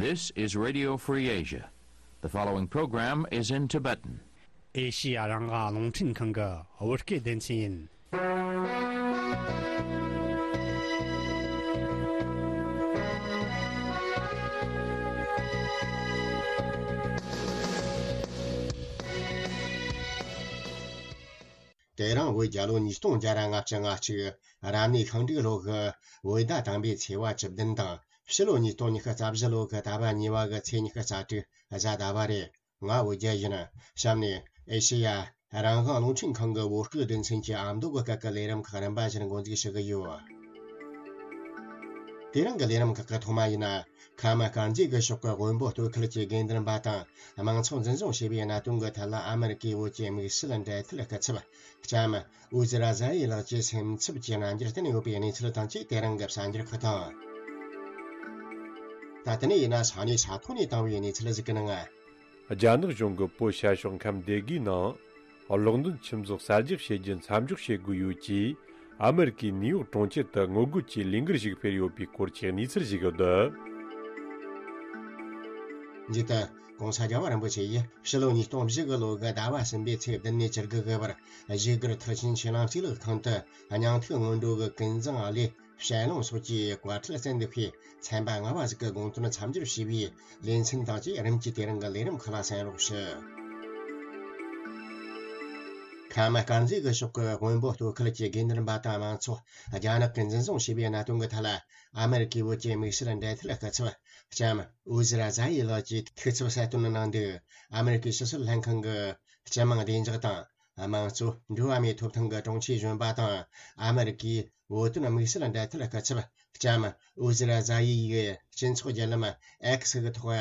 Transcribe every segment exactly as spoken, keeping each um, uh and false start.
This is Radio Free Asia. The following program is in Tibetan. ཨེ་ཤི་ཡ་རང་དབང་རླུང་འཕྲིན་ཁང་གི་བོད་སྐད་སྡེ་ཚན་ཡིན། དེ་རིང་བོད་རྒྱལ་ལོ་ཉིས་སྟོང་བརྒྱ་ར་ལྔ་བཅུ་ང་གཅིག་རབ་གནས་ཤིང་འབྲུག་ལོ་གི་བོད་ཟླ་དང་པོའི་ཚེས་པ་བཅུ་བདུན་དང་ཕྱི་ལོ་ཉིས་སྟོང་ཉི་ཤུ་རྩ་བཞི་ལོ་གི་ཟླ་བ་གཉིས་པ་གི་ཚེས་ཉི་ཤུ་རྩ་དྲུག་གཟའ་ཟླ་བ་རེད། ང་བོད་རྒྱལ་ཡིན། གཤམ་ནས་ཨེ་ཤེ་ཡ་རང་དབང་རླུང་འཕྲིན་ཁང་གི་བོད་སྐད་སྡེ་ཚན་གྱི་ཨ་མདོ་གི་སྐད་ཀྱི་ལས་རིམ་ཁག་རིམ་པ་བཞིན་འགོ་འཛུགས་ཞུ་གི་ཡོད། དེ་རིང་གི་ལས་རིམ་ཁག་གི་ཐོག་མ་ཡིན་ན། ཁ་མ་དཀར་མཛེས་ཀྱི་ཕྱོགས་ཀྱི་དབོན་པོ་སྟོད་ཁུལ་གྱི་དགེ་འདུན་པ་དང་། དམངས་ཚོགས་འཛིན་བཟུང་བྱས་པའི་གནད་དོན་གྱི་ཐད་ལ་ཨ་མེ་རི་ཀའི་བོད་ཀྱི་དམིགས་བསལ་འབྲེལ་མཐུད་སྐུ་ཚབ། ལྕམ་ཨུ་ཛི་ར་ཛ་ཡི་ལགས་ཀྱི་སེམས་འཚབ་ཀྱི་རྣམ་འགྱུར་བསྟན་ཡོད་པའི་གནས་ཚུལ་དང་བཅས་དེ་རིང་གི་གསར་འགྱུར་ཁག་དང་། ད་དེ་ནས་ཡིན་ན་ས་གནས་ས་ཐོག་ནས་བཏང་བའི་གནས་ཚུལ་ཟིག་གི་ནང་། རྒྱ་ནག་གཞུང་གིས་བོད་ཤར་ཕྱོགས་ཁམས་སྡེ་དགུའི་ནང་གློག་འདོན་ཁྱིམ་ཚང་གསར་རྒྱག་བྱེད་རྒྱུ་མཚམས་འཇོག་བྱེད་དགོས་ཡོད་ཅེས་ཨ་མེ་རི་ཀའི་ནིའུ་ཡོག་གྲོང་ཁྱེར་དུ་ངོ་རྒོལ་གྱི་ལས་འགུལ་ཞིག་སྤེལ་ཡོད་པའི་སྐོར་གྱི་གནས་ཚུལ་ཞིག་ཡོད། མཇུག་ཏུ། ྋགོང་ས་རྒྱལ་བ་རིན་པོ་ཆེ་ཡིས་ཕྱི་ལོ་ཉིས་སྟོང་བཞི་གི་ལོ་གི་ཟླ་བ་གསུམ་པའི་ཚེས་བདུན་ནས་བཅུ་དགུ་གི་བར་བཞུགས་སྒར་མཐར་ཕྱིན་ཆོས་གླིང་གཙུག་ལག་ཁང་དུ་སྙིང་ཐིག་སྔོན་འགྲོ་གི་ཀུན་བཟང་བློའི་ཞལ་ལུང་སོགས་ཀྱི་བཀའ་ཁྲིད་སྩལ་འདུག་པས། ཚན་པ་ལྔ་བ་ཟིག་གི་དགོངས་དོན་མཚམས་སྦྱོར་བྱས་པའི་ལེ་ཚན་དང་བཅས་རིམ་གྱིས་དེ་རིང་གི་ལས་རིམ་ཁག་ལ་གསན་རོགས་ཞུ། ཁ་མ་དཀར་མཛེས་ཀྱི་ཕྱོགས་ཀྱི་དབོན་པོ་སྟོད་ཁུལ་གྱི་དགེ་འདུན་པ་དང་དམངས་ཚོགས་རྒྱ་ནག་གིས་འཛིན་བཟུང་བྱས་པའི་གནད་དོན་གྱི་ཐད་ལ། ཨ་མེ་རི་ཀའི་བོད་ཀྱི་དམིགས་བསལ་འབྲེལ་མཐུད་སྐུ་ཚབ་ལྕམ་ཨུ་ཛི་ར་ཛ་ཡི་ལགས་ཀྱིས་ཐུགས་འཚབ་གསལ་སྟོན་གནང་འདུག་ཨ་མེ་རི་ཀའི་ཕྱི་སྲིད་ལྷན་ཁང་གི་སྤྱི་དམངས་བདེ་འཇགས་དང་། དམངས་གཙོ་འགྲོ་བ་མིའི་ཐོབ་ཐང་གི་དྲུང་ཆེ་གཞོན་པ་དང་། ཨ་མེ་རི་ཀའི་བོད་དོན་དམིགས་བསལ་འབྲེལ་མཐུད་སྐུ་ཚབ་ལྕམ་ཨུ་ཛི་ར་ཛ་ཡི་ཡིས་སྤྱི་ཚོགས་བརྒྱུད་ལམ་ཨེག་སི་གི་ཐོག་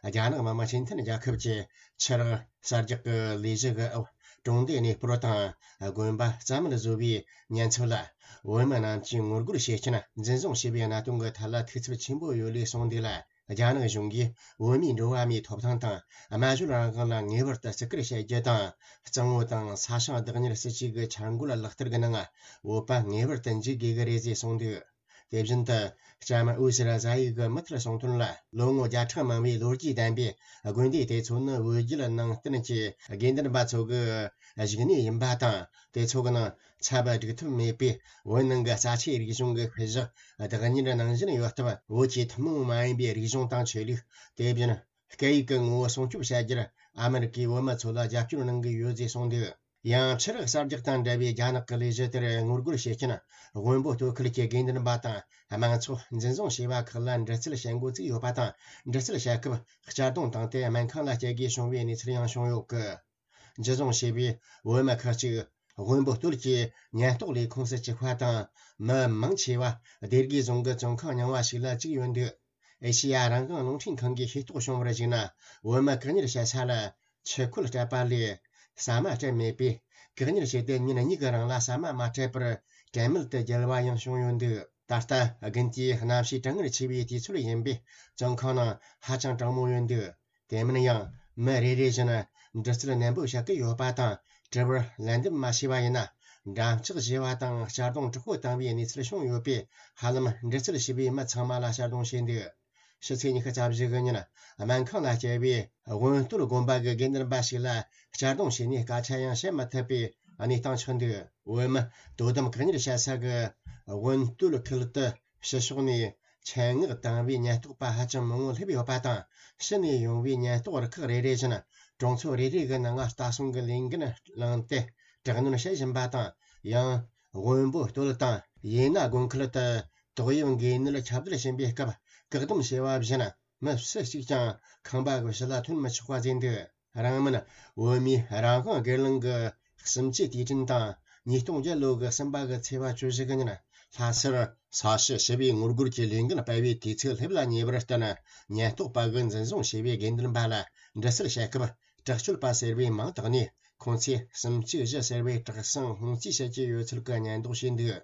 རྒྱ་ནག་མི་དམངས་སྤྱི་མཐུན་རྒྱལ་ཁབ་ཀྱི་ཆུ་རགས་གསར་རྒྱག་གི་ལས་གཞི་གི་འོག་གྲོང་སྡེ་གནས་སྤོར་དང་དགོན་པ་རྩ་མེད་བཟོ་བའི་ཉེན་ཚབས་ལ། བོད་མི་རྣམས་ཀྱིས་ངོ་རྒོལ་བྱེད་རྐྱེན་འཛིན་བཟུང་བྱས་པའི་གནད་དོན་གྱི་ཐད་ལ་ཐུགས་འཚབ་ཆེན་པོ་ཡོད་ལུགས་གསུངས་འདུག་ལ། རྒྱ་ནག་གཞུང་གིས་བོད་མིའི་འགྲོ་བ་མིའི་ཐོབ་ཐང་དང་སྨྲ་བརྗོད་རང་དབང་ལ་ངེས་པར་དུ་བརྩི་བཀུར་བྱེད་རྒྱུ་དང་། གཙང་བོ་དང་ས་ཞིང་བདག་གཉེར་སྲིད་ཇུས་ཀྱི་འཆར་འགོད་ལག་བསྟར་གྱི་ནང་བོད་པ་ངེས་པར་དུ་འཇུག་དགོས་ཀྱི་རེད་ཅེས་གསུངས་འདུག་དེ་བཞིན་དུ། ལྕམ་ཨུ་ཛི་ར་ཛ་ཡི་གི་མུ་མཐུད་གསུང་དོན་ལ། ལོ་ངོ་བརྒྱ་ཕྲག་མང་བའི་ལོ་རྒྱུས་ལྡན་པའི་དགོན་སྡེ་དེ་ཚོ་ནི་བོད་བརྒྱུད་ནང་བསྟན་གྱི་དགེ་འདུན་པ་ཚོ་གི་བཞུགས་གནས་ཡིན་པ་དང་། དེ་ཚོ་གི་ནང་ཚབ་སྒྲིག་ཐབས་མེད་པའི་བོད་ནང་གི་རྩ་ཆེའི་རིག་གཞུང་གི་ཤུལ་བཞག་བདག་གཉེར་གནང་བཞིན་ཡོད་སྟབས། བོད་ཀྱི་ཐུན་མོང་མ་ཡིན་པའི་རིག་གཞུང་དང་ཆོས་ལུགས། དེ་བཞིན་སྐད་ཡིག་གི་ངོ་བོ་སྲུང་སྐྱོབ་བྱ་རྒྱུར་ཨ་མེ་རི་ཀས་བོད་མི་ཚོ་ལ་རྒྱབ་སྐྱོར་གནང་གི་ཡོད་ཅེས་གསུངས་འདུག་ཡང་ཆུ་རགས་གསར་རྒྱག་དང་འབྲེལ་བའི་རྒྱ་ནག་གི་ལས་གཞི་དེར་ངོ་རྒོལ་བྱེད་མཁན་དབོན་པོ་སྟོད་ཁུལ་གྱི་དགེ་འདུན་པ་དང་དམངས་ཚོགས་འཛིན་བཟུང་བྱས་པ་ཁག་ལ་འདྲི་རྩད་བྱེད་འགོ་བཙུགས་ཡོད་པ་དང་། འདྲི་རྩད་བྱེད་སྐབས་གཅར་རྡུང་བཏང་སྟེ་སྨན་ཁང་ལ་བསྐྱལ་དགོས་བྱུང་བའི་གནས་ཚུལ་ཡང་བྱུང་ཡོད་གི། འཛིན་བཟུང་བྱས་པའི་བོད་མི་ཁག་ཅིག་དབོན་པོ་སྟོད་ཀྱི་ཉེན་རྟོག་ལས་ཁུངས་སུ་བཅུག་པ་དང་། མི་མང་ཆེ་བ་སྡེ་དགེ་རྫོང་གི་བཙོན་ཁང་རྙིང་བ་ཞིག་ལ་བཅུག་ཡོད་འདུག་ཨེ་ཤེ་ཡ་རང་དབང་རླུང་འཕྲིན་ཁང་གིས་ཤེས་རྟོགས་བྱུང་བར་གཞིགས་ན། བོད་མི་བཀག་ཉར་བྱེད་ས་ལ་ཆུ་ཁོལ་སྤྲད་པ་ལས་ཟ་མ་སྤྲད་མེད་པས། བཀག་ཉར་བྱས་ཏེ་ཉིན་གཉིས་ཀྱི་རིང་ལ་ཟ་མ་མ་སྤྲད་པར་དྲན་མེད་དུ་བརྒྱལ་བ་ཡང་བྱུང་ཡོད་འདུག་ད་ལྟ་དགུན་དུས་གནམ་གཤིས་གྲང་ངར་ཆེ་བའི་དུས་ཚོད་ཡིན་པས། བཙོན་ཁང་ནང་ཧ་ཅང་གྲང་མོ་ཡོད་འདུག་དེ་མིན་ཡང་། མི་རེ་རེ་བཞིན་འདྲི་རྩད་ནན་པོ་བྱེད་ཀྱི་ཡོད་པ་དང་། དྲི་བར་ལན་འདེབས་མ་བྱས་པ་ཡིན་ན། འགྲམ་ལྕག་བཞེས་པ་དང་གཅར་རྡུང་དྲག་པོ་བཏང་བའི་གནས་ཚུལ་བྱུང་ཡོད་པས། ཧ་ལམ་འདྲི་རྩད་བྱས་པའི་མི་ཚང་མ་ལ་གཅར་རྡུང་བྱས་འདུག་ཕྱི་ཚེས་ཉི་ཤུ་རྩ་བཞི་གི་ཉིན། སྨན་ཁང་ལ་བསྐྱལ་བའི་དབོན་སྟོད་དགོན་པ་གི་དགེ་འདུན་པ་ཞིག་ལ་གཅར་རྡུང་བྱས་ནས་སྐད་ཆ་ཡང་བཤད་མ་ཐུབ་པའི་གནས་སྟངས་ཆགས་འདུག་བོད་མི་དོ་དམ་བཀག་ཉར་བྱེད་ས་གི་དབོན་སྟོད་ཁུལ་དུ། ཕྱི་ཕྱོགས་ནས་ཆེད་མངགས་བཏང་བའི་ཉེན་རྟོག་པ་ཧ་ཅང་མང་བོ་སླེབས་ཡོད་པ་དང་། ཕྱི་ནས་ཡོང་བའི་ཉེན་རྟོག་རུ་ཁག་རེ་རེ་བཞིན་གྲོང་ཚོ་རེ་རེ་གི་ནང་ལྟ་སྲུང་གི་ལས་འགན་བླངས་ཏེ་དྲག་གནོན་བྱེད་བཞིན་པ་དང་། ཡང་། དབོན་པོ་སྟོད་དང་ཡེ་ན་དགོན་ཁུལ་དུ་ཏོག་དབྱིབས་འགོས་ནད་ཁྱབ་གདལ་ཕྱིན་པའི་སྐབས། བཀག་སྡོམ་བྱས་པ་བཞིན་མི་སུ་གཅིག་ཀྱང་ཁང་པ་གི་ཕྱི་ལ་ཐོན་མི་ཆོག་པ་བཟོས་འདུག་རང་མིན་བོད་མིའི་རང་དབང་སྒེར་ལངས་ཀྱི་གསུམ་བཅུའི་དུས་དྲན་དང་། ཉིས་སྟོང་བརྒྱད་ལོ་གི་གསུམ་པ་གི་ཚེས་པ་བཅུ་བཞི་གི་ཉིན། ལྷ་སར་ས་གཞི་ཞི་བའི་ངོ་རྒོལ་གྱི་ལས་འགུལ་སྤེལ་བའི་དུས་ཚོད་སླེབས་ལ་ཉེ་བར་བརྟེན། ཉེན་རྟོག་པ་གིས་འཛིན་བཟུང་བྱས་པའི་དགེ་འདུན་པ་ལ་འདྲི་རྩད་བྱེད་སྐབས། དྲག་སྤྱོད་པ་ཟེར་བའི་མིང་བཏགས་ནས། ཁོང་ཚོས་གསུམ་བཅུ་བཞི་ཟེར་བའི་དྲག་ཟིང་སྔོན་རྩིས་བྱེད་ཀྱི་ཡོད་ཚུལ་གྱི་ཉེན་རྟོག་བྱས་འདུག་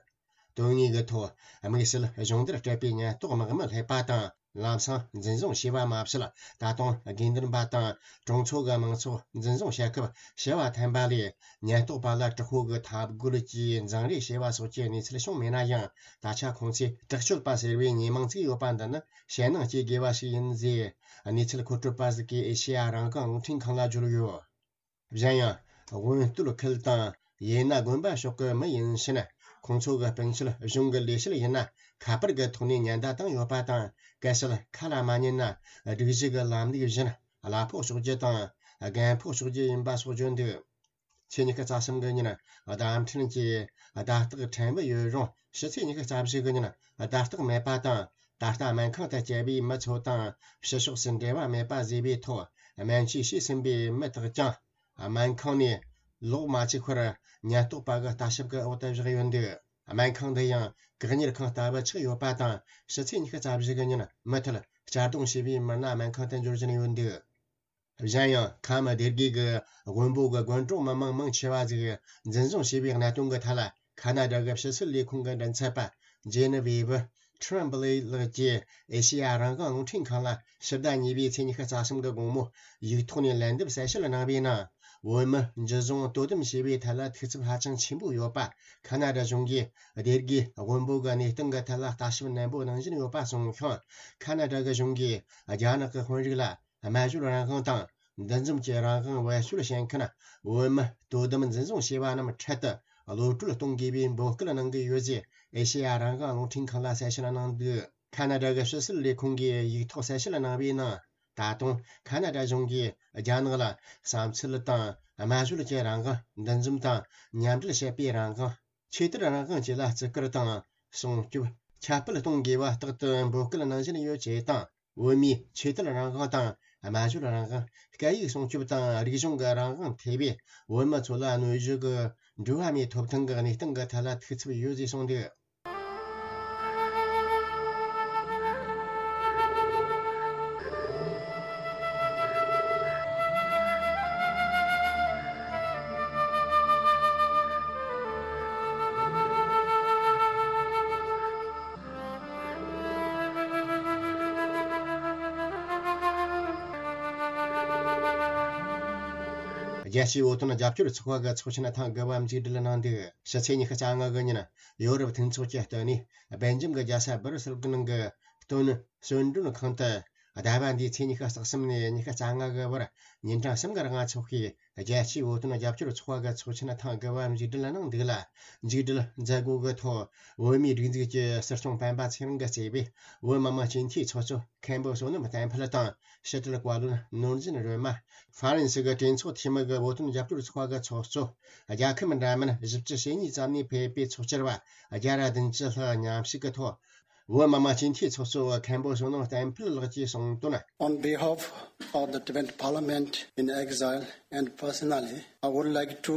དོན་དངོས་ཀྱི་ཐོག་དམིགས་བསལ་སྦྱོང་བརྡར་སྤྲད་པའི་ཉེན་རྟོག་དམག་མི་སླེབས་པ་དང་། ལམ་སང་འཛིན་བཟུང་བྱས་པ་མ་ཟད། ད་དུང་དགེ་འདུན་པ་དང་གྲོང་ཚོ་གི་མང་ཚོགས་འཛིན་བཟུང་བྱེད་སྐབས་བྱ་བ་འཐེན་པ་ལས། ཉེན་རྟོག་པ་ལ་དྲག་པོ་གི་འཐབ་རྒོལ་གྱིས་འཛིང་རེས་བྱས་པ་སོགས་ཀྱི་གནས་ཚུལ་བྱུང་མེད་ན་ཡང་། ད་ཆ་ཁོང་ཚོས་དྲག་སྤྱོད་པ་ཟེར་བའི་མྱི་མིང་བརྩིས་ཡོད་པ་འདི་ནི་ཞེད་སྣང་སྐྱེ་དགོས་པ་ཞིག་ཡིན་ཟེར། གནས་ཚུལ་མཁོ་སྤྲོད་པ་ཟིག་གིས་ཨེ་ཤེ་ཡ་རང་དབང་རླུང་འཕྲིན་ཁང་ལ་བརྗོད་ཡོད། གཞན་ཡང་། དབོན་སྟོད་ཁུལ་དང་ཡེ་ན་དགོན་པ་ཕྱོགས་ཀྱི་མི་ཡིན་ཕྱིན། ཁོང་ཚོ་གི་སྤུན་མཆེད་གཞུང་གི་ལས་བྱེད་ཡིན་ན་ཁ་པར་གྱི་ཐོག་ནས་ཉེན་བརྡ་བཏང་ཡོད་པ་དང་། གལ་སྲིད་ཁ་ལ་མ་ཉན་ན་སྒྲིག་གཞི་གི་ལམ་ལུགས་བཞིན་གླ་ཕོགས་གཅོག་རྒྱུ་དང་རྒན་ཕོགས་གཅོག་རྒྱུ་ཡིན་པ་སོགས་བརྗོད་འདུག་ཚེས་ཉི་ཤུ་རྩ་གསུམ་གྱི་ཉིན་བརྡ་འཕྲིན་གྱི་བརྡ་རྟགས་ཕྲན་བུ་ཡོད་རུང་། ཕྱི་ཚེས་ཉི་ཤུ་རྩ་བཞི་གི་ཉིན་བརྡ་རྟགས་མེད་པ་དང་། ད་ལྟ་སྨན་ཁང་དུ་བསྐྱལ་བའི་མི་ཚོ་དང་ཕྱི་ཕྱོགས་སུ་འབྲེལ་བ་མེད་པ་བཟོས་པའི་ཐོག་སྨན་བཅོས་བྱས་ཟིན་པའི་མི་དག་ཀྱང་སྨན་ཁང་ནས་ལོག་མ་བཅུག་པར་ཉེན་རྟོག་པ་གི་ལྟ་ཞིབ་ཀྱི་འོག་ཏུ་བཞག་ཡོད་འདུག་སྨན་ཁང་འདི་ཡང་བཀག་ཉར་ཁང་ལྟ་བུ་ཆགས་ཡོད་པ་དང་། ཕྱི་ཚེས་ཉི་ཤུ་རྩ་བཞི་གི་ཉིན་མུ་མཐུད་གཅར་རྡུང་བྱས་པའི་མི་སྣ་སྨན་ཁང་དུ་འབྱོར་བཞིན་ཡོད་འདུག་གཞན་ཡང་། ཁམས་སྡེ་དགེ་གི་དབོན་པོ་གི་དགོན་གྲོང་མི་མང་མང་ཆེ་བ་ཟིག་འཛིན་བཟུང་བྱས་པའི་གནད་དོན་གྱི་ཐད་ལ། ཁ་ན་ཌ་གི་ཕྱི་སྲིད་ལས་ཁུངས་ཀྱི་མགྲིན་ཚབ་པ་ཇེ་ནི་ཝེ་བི་ཁྲི་རམ་བྷི་ལེ་ལགས་ཀྱིས་ཨེ་ཤེ་ཡ་རང་དབང་རླུང་འཕྲིན་ཁང་ལ་ཕྱི་ཟླ་གཉིས་པའི་ཚེས་ཉི་ཤུ་རྩ་གསུམ་གྱི་དགོང་མོ་ཡིག་ཐོག་ནས་ལན་འདེབས་གསལ་བཤད་གནང་བའི་ནང་། བོད་མི་འཇུ་བཟུང་དོ་དམ་བྱས་པའི་ཐད་ལ་ཐུགས་འཚབ་ཧ་ཅང་ཆེན་པོ་ཡོད་པ། ཁ་ན་ཌ་གཞུང་གིས་སྡེ་དགེ་དབོན་པོ་གི་གནས་སྟངས་ཀྱི་ཐད་ལ་ལྟ་ཞིབ་ནན་པོ་གནང་བཞིན་ཡོད་པ་གསུངས་ཤིང་། ཁ་ན་ཌ་གི་གཞུང་གིས་རྒྱ་ནག་གི་དཔོན་རིགས་ལ། སྨན་བཅོས་རང་དབང་དང་འདུ་འཛོམས་ཀྱི་རང་དབང་བེད་སྤྱོད་བྱེད་མཁན་བོད་མི་དོ་དམ་འཛིན་བཟུང་བྱས་པ་རྣམས་འཕྲལ་དུ་གློད་བཀྲོལ་གཏོང་དགོས་པའི་འབོད་སྐུལ་གནང་གི་ཡོད་ཅེས་ཨེ་ཤེ་ཡ་རང་དབང་རླུང་འཕྲིན་ཁང་ལ་གསལ་བཤད་གནང་འདུག་ཁ་ན་ཌ་གི་ཕྱི་སྲིད་ལས་ཁུངས་ཀྱིས་ཡིག་ཐོག་གསལ་བཤད་གནང་བའི་ནང་། ད་དུང་ཁ་ན་ཌ་གཞུང་གིས་རྒྱ་ནག་ལ་བསམ་ཚུལ་དང་སྨན་བཅོས་ཀྱི་རང་དབང་། འདུ་འཛོམས་དང་མཉམ་འབྲེལ་བྱེད་པའི་རང་དབང་། ཆོས་དད་རང་དབང་བཅས་ལ་བརྩི་བཀུར་དང་སྲུང་སྐྱོབ་ཁྱབ་སྤེལ་གཏོང་དགོས་པ་རྟག་ཏུ་འབོད་སྐུལ་གནང་བཞིན་ཡོད་ཅེས་དང་། བོད་མིའི་ཆོས་དད་རང་དབང་དང་སྨྲ་བརྗོད་རང་དབང་། སྐད་ཡིག་སྲུང་སྐྱོབ་དང་རིག་གཞུང་གི་རང་དབང་ཐེ་བའི་བོད་མི་ཚོ་ལ་གནོད་གཞི་གི་འགྲོ་བ་མིའི་ཐོབ་ཐང་གི་གནས་སྟངས་ཀྱི་ཐད་ལ་ཐུགས་འཚབ་ཡོད་ཅེས་གསུངས་འདུག་རྒྱལ་སྤྱིའི་བོད་དོན་རྒྱབ་སྐྱོར་ཚོགས་པ་གི་ཚོགས་ཆེན་ཐེངས་དགུ་པ་མཇུག་སྒྲིལ་གནང་འདུག་ཕྱི་ཚེས་ཉི་ཤུ་རྩ་ལྔ་གི་ཉིན་ཡོ་རོབ་མཐུན་ཚོགས་ཀྱི་ལྟེ་གནས་སྦེལ་ཇམ་གྱི་རྒྱལ་ས་སྦར་སེལ་གྱི་ནང་གི་སྟོན་གསོལ་མགྲོན་ཁང་དུ། ཟླ་བ་འདིའི་ཚེས་ཉི་ཤུ་རྩ་གསུམ་ནས་ཉི་ཤུ་རྩ་ལྔ་གི་བར་ཉིན་གྲངས་གསུམ་གྱི་རིང་འཚོགས་པའི་རྒྱལ་སྤྱིའི་བོད་དོན་རྒྱབ་སྐྱོར་ཚོགས་པ་གི་ཚོགས་ཆེན་ཐེངས་དགུ་པ་མཇུག་སྒྲིལ་གནང་འདུག་ལ། མཇུག་སྒྲིལ་མཛད་སྒོ་གི་ཐོག་བོད་མིའི་སྒྲིག་འཛུགས་ཀྱི་སྲིད་སྐྱོང་སྤེན་པ་ཚེ་རིང་གིས་གཙོས་པའི་བོད་མི་མང་སྤྱི་འཐུས་ཚོགས་གཙོ་མཁན་པོ་བསོད་ནམས་བསྟན་འཕེལ་དང་། ཕྱི་དྲིལ་བཀའ་བློན་ནོར་འཛིན་སྒྲོལ་མ། ཧྥ་རན་སི་གི་གྲོས་ཚོགས་འཐུས་མི་གི་བོད་དོན་རྒྱབ་སྐྱོར་ཚོགས་པ་གི་ཚོགས་གཙོ། རྒྱལ་ཁབ་འདྲ་མིན་བཞི་བཅུ་ཞེ་གཉིས་ཙམ་ནས་ཕེབས་པའི་ཚོགས་བཅར་བ་བརྒྱ་ར་བདུན་ཅུ་ལྷག་མཉམ་ཞུགས་ཀྱི་ཐོག་བོད་མི་མང་སྤྱི་འཐུས་ཚོགས་གཙོ་བོ་མཁན་པོ་བསོད་ནམས་བསྟན་འཕེལ་ལགས་ཀྱིས་གསུངས་དོན། On behalf of the Tibetan Parliament in exile and personally, I would like to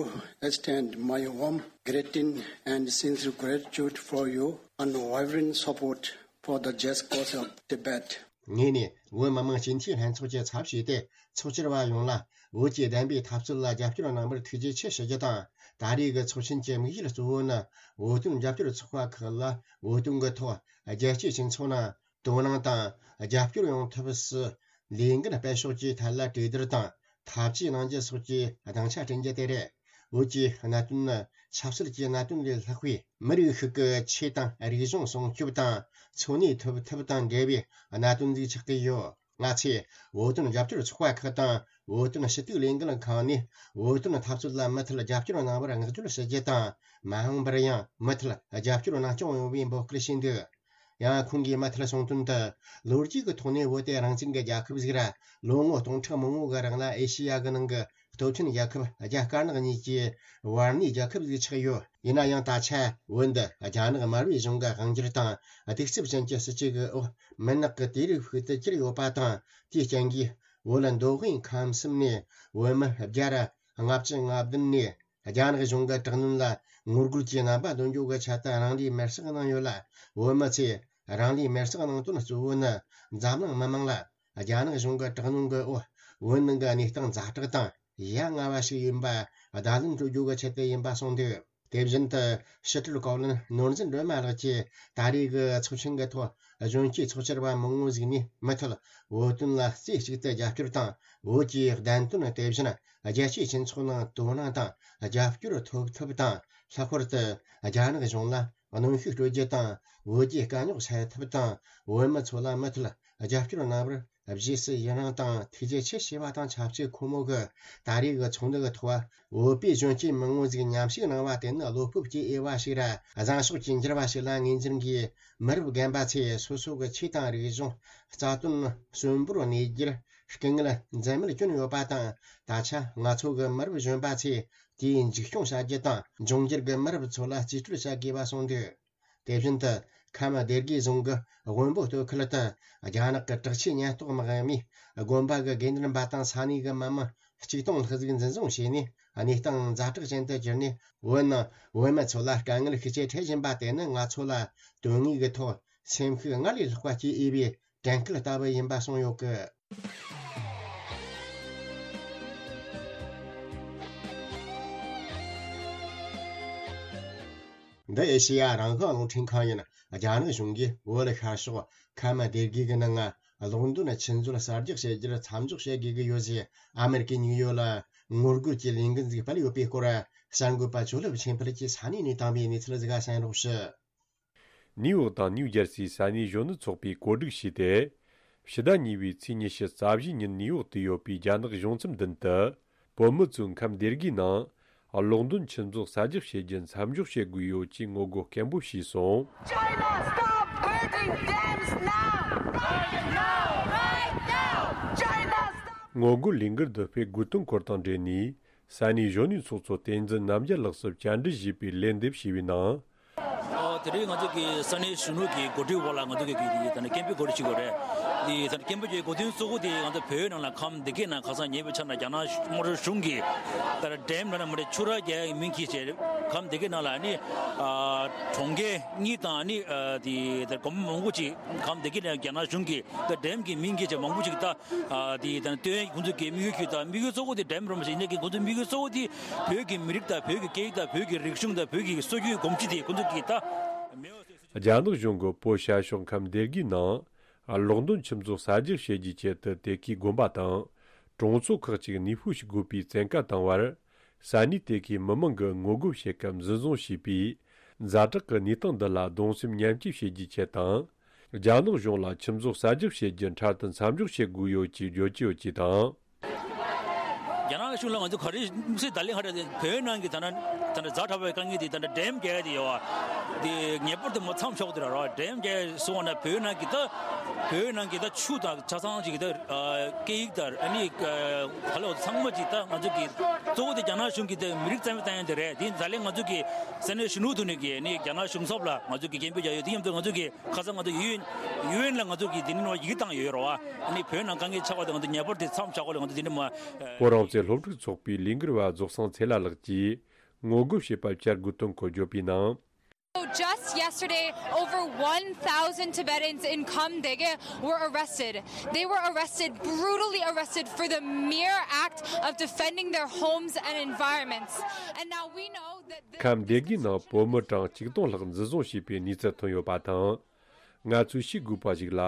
extend my warm greeting and sincere gratitude for your unwavering support for the just cause of Tibet. ངས་ནི་བོད་མི་མང་སྤྱི་འཐུས་ལྷན་ཚོགས་ཀྱི་ཚབ་བྱས་ཏེ་ཚོགས་བཅར་བ་ཡོངས་ལ་བོད་ཀྱི་བདེན་པའི་འཐབ་རྩོད་ལ་རྒྱབ་སྐྱོར་གནང་བར་ཐུགས་རྗེ་ཆེ་ཞུ་རྒྱུ་དང་། ད་རེས་ཀྱི་ཚོགས་ཆེན་གྱི་དམིགས་ཡུལ་གཙོ་བོ་ནི་བོད་དོན་རྒྱབ་སྐྱོར་ཚོགས་པ་ཁག་ལ་བོད་དོན་གྱི་ཐོག་རྒྱལ་སྤྱིའི་སྤྱི་ཚོགས་ནང་དོ་སྣང་དང་རྒྱབ་སྐྱོར་ཡོང་ཐབས་སུ་ལས་འགན་སྤེལ་ཕྱོགས་ཀྱི་ཐད་ལ་གྲོས་བསྡུར་དང་ཐབས་ཇུས་གནང་རྒྱུ་སོགས་ཀྱི་སྡིངས་ཆ་བསྐྲུན་རྒྱུ་དེ་རེད། བོད་ཀྱི་གནད་དོན་ནི་ཆབ་སྲིད་ཀྱི་གནད་དོན་ལས་ལྷག་པའི་མི་རིགས་ཤིག་གི་ཆོས་དང་རིག་གཞུང་སྲུང་སྐྱོབ་དང་འཚོ་གནས་ཐུབ་ཐབས་དང་འབྲེལ་བའི་གནད་དོན་ཞིག་ཆགས་ཀྱི་ཡོད། ང་ཚོས་བོད་དོན་རྒྱབ་སྐྱོར་ཚོགས་པ་ཁག་དང་བོད་དོན་ཞུ་གཏུག་ལས་འགུལ་ཁང་ནས་བོད་དོན་འཐབ་རྩོད་ལ་མུ་མཐུད་རྒྱབ་སྐྱོར་གནང་བར་བསྔགས་བརྗོད་ཞུ་རྒྱུ་དང་། མ་འོངས་པར་ཡང་མུ་མཐུད་རྒྱབ་སྐྱོར་གནང་སྐྱོང་ཡོང་བའི་འབོད་སྐུལ་ཞུས་འདུག་ཡང་ཁོང་གིས་མུ་མཐུད་གསུངས་དོན་དུ། ལོ་རྒྱུས་ཀྱི་ཐོག་ནས་བོད་དེ་རང་བཙན་གྱི་རྒྱལ་ཁབ་ཟིག་ར། ལོ་ངོ་སྟོང་ཕྲག་མང་པོ་གི་རིང་ལ་ཨེ་ཤེ་ཡ་གི་ནང་གི་སྟོབས་ཆེན་རྒྱལ་ཁབ་རྒྱ་དཀར་ནག་གཉིས་ཀྱི་བར་གནས་རྒྱལ་ཁབ་ཟིག་ཆགས་ཡོད། ཡིན་ན་ཡང་ད་ཆ་བོད་འདི་རྒྱ་ནག་དམར་པོའི་གཞུང་གི་དབང་སྒྱུར་དང་གདུག་རྩུབ་ཅན་གྱི་སྲིད་བྱུས་ཀྱི་འོག་མུན་ནག་གི་དུས་རབས་ཤིག་ཏུ་གྱུར་ཡོད་པ་དང་། དེའི་རྐྱེན་གྱིས་བོད་མདོ་དབུས་ཁམས་གསུམ་ནས་བོད་མི་བརྒྱ་ར་ལྔ་བཅུ་ང་བདུན་ནས། རྒྱ་ནག་གཞུང་གི་དྲག་གནོན་ལ་ངོ་རྒོལ་གྱི་རྣམ་པ་འདོན་རྒྱུ་གི་ཆེད་དུ་རང་ལུས་མེར་སྲེག་གནང་ཡོད་ལ། བོད་མི་ཚོས་རང་ལུས་མེར་སྲེག་གནང་དོན་གཙོ་བོ་ནི། འཛམ་གླིང་མི་མང་ལ་རྒྱ་ནག་གཞུང་གི་དྲག་གནོན་གྱི་འོག་བོད་ནང་གི་གནས་སྟངས་ཛ་དྲག་དང་ཡ་ང་བ་ཞིག་ཡིན་པ་བརྡ་ལན་སྤྲོད་རྒྱུ་གི་ཆེད་དུ་ཡིན་པ་གསུངས་འདུག་དེ་བཞིན་དུ་ཕྱི་དྲིལ་བཀའ་བློན་ནོར་འཛིན་སྒྲོལ་མ་ལགས་ཀྱིས་ད་རེས་ཀྱི་ཚོགས་ཆེན་གྱི་ཐོག་གཞོན་སྐྱེས་ཚོགས་བཅར་བ་མང་བོ་ཞིག་ནས་མུ་མཐུད་བོད་དོན་ལ་རྩེ་གཅིག་ཏུ་རྒྱབ་སྐྱོར་དང་བོད་ཀྱི་བདེན་དོན། དེ་བཞིན་རྒྱལ་སྤྱིའི་སྤྱི་ཚོགས་ནང་དོ་སྣང་དང་རྒྱབ་སྐྱོར་ཐོབ་ཐབས་དང་། ལྷག་པར་དུ་རྒྱ་ནག་གཞུང་ལ་གནོན་ཤུགས་སྤྲོད་རྒྱུ་དང་། བོད་རྒྱའི་དཀའ་རྙོག་སེལ་ཐབས་དང་། བོད་མི་ཚོ་ལ་མུ་མཐུད་རྒྱབ་སྐྱོར་གནང་བར་རྗེས་སུ་ཡི་རང་དང་ཐུགས་རྗེ་ཆེ་ཞུ་བ་དང་ཆབས་ཅིག་ཁོ་མོ་གིས་ད་རེས་ཀྱི་ཚོགས་འདུ་གི་ཐོག་བོད་པའི་གཞོན་སྐྱེས་མང་བོ་ཞིག་མཉམ་ཞུགས་གནང་བ་དེ་ནི་བློ་སྤོབས་ཀྱི་དབྱེ་བ་ཞིག་ར། བཟང་ཕྱོགས་ཀྱི་འགྱུར་བ་ཞིག་ལ་ངོས་འཛིན་གྱིས། མི་རབས་རྒན་པ་ཚོས་སོ་སོ་གི་ཆོས་དང་རིག་གཞུང་། རྩ་དོན་གསོན་པོར་གནས་རྒྱུར་སྐུ་ངལ་འཛེམས་མེད་བསྐྱོན་ཡོད་པ་དང་། ད་ཆ་ང་ཚོ་གི་མི་རབས་གཞོན་པ་ཚོས་དེའི་འཇིགས་སྐྱོང་བྱ་རྒྱུ་དང་། འབྱུང་འགྱུར་གྱི་མི་རབས་ཚོ་ལ་རྩིས་སྤྲོད་བྱ་དགོས་པ་གསུངས་འདུག་དེ་བཞིན་དུ་ཁམས་སྡེ་དགེ་རྫོང་གི་དབོན་པོ་སྟོད་ཁུལ་དུ་རྒྱ་ནག་གི་དྲག་ཆས་ཉེན་རྟོག་དམག་མིས་དགོན་པ་གི་དགེ་འདུན་པ་དང་ས་གནས་ཀྱི་མི་མང་གཅིག་སྟོང་ལྷག་ཟིག་འཛིན་བཟུང་བྱས་ནས། གནས་སྟངས་ཛ་དྲག་ཅན་དུ་གྱུར་ནས། བོད་ནང་བོད་མི་ཚོ་ལ་དཀའ་ངལ་ཤུགས་ཆེ་འཕྲད་བཞིན་པ་དེ་ནི་ང་ཚོ་ལ་དོན་དངོས་ཀྱི་ཐོག་སེམས་ཤུགས་སྔར་ལས་ལྷག་པ་སྐྱེ་འོས་པའི་དྲན་སྐུལ་ལྟ་བུ་ཡིན་པ་གསུངས་ཡོད་གི། འདི་ཨེ་ཤེ་ཡ་རང་དབང་རླུང་འཕྲིན་ཁང་ཡིན། རྒྱ་ནག་གཞུང་གིས་བོད་ཤར་ཕྱོགས་ཁམས་སྡེ་དགེ་གི་ནང་གློག་འདོན་ཆུ་མཛོད་གསར་རྒྱག་བྱེད་རྒྱུར་མཚམས་འཇོག་བྱེད་དགོས་ཀྱི་ཡོད་ཅེས་ཨ་མེ་རི་ཀའི་ནིའུ་ཡོག་ལ་ངོ་རྒོལ་གྱི་ལས་འགུལ་ཞིག་སྤེལ་ཡོད་པའི་སྐོར། གསར་འགོད་པ་ཇོ་ལེབ་ཆོས་འཕེལ་གྱིས་ས་གནས་ནས་བཏང་བའི་གནས་ཚུལ་ཞིག་གསན་རོགས་ཞུ། ནིའུ་ཡོག་དང་ནིའུ་ཇར་སིའི་ས་གནས་གཞོན་ནུ་ཚོགས་པས་གོ་སྒྲིག་བྱས་ཏེ། ཕྱི་ཟླ་གཉིས་པའི་ཚེས་ཉི་ཤུ་རྩ་བཞིའི་ཉིན་ནིའུ་ཡོག་ཏུ་ཡོད་པའི་རྒྱ་ནག་གཞུང་ཚབ་མདུན་དུ། བོད་མི་ཚོས་ཁམས་སྡེ་དགེའི་ནང་གློག་འདོན་ཆུ་མཛོད་གསར་རྒྱག་བྱེད་རྒྱུ་མཚམས་འཇོག་བྱེད་དགོས་ཡོད་ཅེས་ངོ་རྒོལ་སྐད་འབོད་བྱས་སོང་། China, stop building dams now! Right now! Right now! China, stop! ངོ་རྒོལ་ལས་འགུལ་འདི་སྤེལ་དགོས་དོན་སྐོར་དང་འབྲེལ་ནས། ས་གནས་གཞོན་ནུའི་ཚོགས་གཙོ་བསྟན་འཛིན་རྣམ་རྒྱལ་ལགས་སུ་བཅར་འདྲི་ཞུས་པའི་ལན་འདེབས་ཞུས་པའི་ནང་། ཨོ། དེ་རིང་ང་ཚོ་གི་ས་གནས་གཞོན་ནུ་གི་འགོ་ཁྲིད་འོག་ལ་ང་ཚོ་གི་གི་དེ་ད་ནི་སྐད་འབོད་གོ་སྒྲིག་ཞུ་དགོས་རེད། དེ་ད་ནི་སྐད་འབོད་ཀྱི་གོ་དོན་གཙོ་བོ་དེ་ང་ཚོ་བོད་ནང་ལ་ཁམས་སྡེ་དགེ་ནང་ཁ་སང་ཉེ་བའི་ཆར་ན་རྒྱ་ནག་དམར་ཤོག་གཞུང་གིས་ད་ནི་ཌེམ་ལ་ན་མ་རེད། ཆུ་རགས་རྒྱག་ཡའི་མིང་གིས་བྱས་ཁམས་སྡེ་དགེ་ནང་ལ་ནི་ཨ་གྲོང་ཁྱེར་གཉིས་དང་ནི་ཨ་དེ་ད་དགོན་པ་མང་པོ་ཅིག་ཁམས་སྡེ་དགེ་ནང་རྒྱ་ནག་གཞུང་གིས་ད་ཌེམ་གྱི་མིང་གིས་བྱས་མང་པོ་ཅིག་ད། ཨ་དེ་ད་ནི་སྟོན་ཁོང་ཚོ་གི་དམིགས་ཡུལ་གྱི་ད་དམིགས་ཡུལ་གཙོ་བོ་དེ་ཌེམ་རུ་མ་ཞིག་ཡིན་ནའི་གི་ཁོང་ཚོའི་དམིགས་ཡུལ་གཙོ་བོ་དེ་བོད་ཀྱི་མི་རིགས་དང་བོད་ཀྱི་སྐད་ཡིག་དང་བོད་ཀྱི་རིག་གཞུང་དང་བོད་ཀྱི་སྲོལ་རྒྱུན་གོམས་གཤིས་དེ་ཁོང་ཚོ་གི་ད་མེད་པ་བཟོས་སོང་། རྒྱ་ནག་གཞུང་གིས་བོད་ཤར་ཕྱོགས་ཁམས་སྡེ་དགེའི་ནང་གློག་འདོན་ཆུ་མཛོད་གསར་རྒྱག་བྱེད་རྒྱུའི་ཆེད་དུ་དེ་གའི་དགོན་པ་དང་གྲོང་ཚོ་ཁག་ཅིག་གནས་སྤོས་བྱེད་དགོས་པའི་བཙན་བཀའ་བཏང་བར། ས་གནས་དེ་གའི་མི་མང་གིས་ངོ་རྒོལ་བྱེད་སྐབས་འཛིན་བཟུང་བྱས་པའི་ཛ་དྲག་གི་གནས་སྟངས་འདི་ལ་གདུང་སེམས་མཉམ་སྐྱེད་བྱེད་རྒྱུའི་ཆེད་དང་། རྒྱ་ནག་གཞུང་ལ་ཆུ་མཛོད་གསར་རྒྱག་བྱེད་རྒྱུ་འཕྲལ་དུ་མཚམས་འཇོག་བྱེད་དགོས་ཡོད་ཅེས་བརྗོད་ཀྱི་ཡོད་ཅེས་དང་། རྒྱ་ནག་གཞུང་ལ་ང་ཚོ་ག་རེ་དམིགས་བསལ་ད་ལན་ཧ་ར་བོད་ནང་གི་ད་ན་ད་ན་ཛ་དྲག་པའི་དཀའ་ངལ་དེ་ད་ན་ཌེམ་རྒྱག་ཡ་དེ་ཡོད་བ། དེ་ངེས་པར་དུ་མ་མཚམས་འཇོག་དེ་ར་ར་ཌེམ་རྒྱག་སོང་བ་ན་བོད་ནང་གི་ད་བོད་ནང་གི་ད་ཆུ་དང་ཆ་ཚང་ཅིག་ད་སྐད་ཡིག་དང་ཨ་ནི་ག་ལ་ཚང་མ་ཅིག་ད་ང་ཚོ་གི་གཙོ་བོ་དེ་རྒྱ་ནག་གཞུང་གི་དེ་མི་རིགས་རྩ་མེད་བཏང་ཡ་དེ་རེད། དེ་ད་ལན་ང་ཚོ་གི་ས་གནས་གཞོན་ནུ་དུ་ནས་གི་ནི་རྒྱ་ནག་གཞུང་ཚབ་ལ་ང་ཚོ་གི་སྐད་འབོད་རྒྱག་ཡོད། དེ་མཉམ་དུ་ང་ཚོ་གི་ཁ་སང་ང་ཚོ་ཡུ་ཨེན་ཡུ་ཨེན་ལ་ང་ཚོ་གི་དེ་ནི་ནོར་ཡིག་བཏང་ཡོད་རོ་བ། ཨ་ནི་བོད་ནང་དཀའ་ངལ་ཆགས་པ་དེ་ང་ཚོ་ངེས་པར་དེ་མཚམས་བཞག་དགོས་ལ་ང་ཚོ་དེ་འདྲ་མ། བོད་རང་བཙན་སློབ་ཕྲུག་ཚོགས་པའི་ལས་འགུལ་བ་རྫོགས་སངས་ཚེ་ལྷ་ལགས་ཀྱིས་ངོ་རྒོལ་བྱེད་པ་བསྐྱར་དགོས་དོན་སྐོར་བརྗོད་པའི་ནང་། So just yesterday, over one thousand Tibetans in Kham Dege were arrested. They were arrested, brutally arrested, for the mere act of defending their homes and environments. And now we know that this ཁམས་སྡེ་དགེའི་ནང་བོད་མི་གྲངས་ཆིག་སྟོང་ལྷག་འཛིན་བཟུང་བྱས་པའི་གནས་ཚུལ་ཐོན་ཡོད་པ་དང་། ང་ཚོས་ཤེས་དགོས་པ་ཞིག་ལ།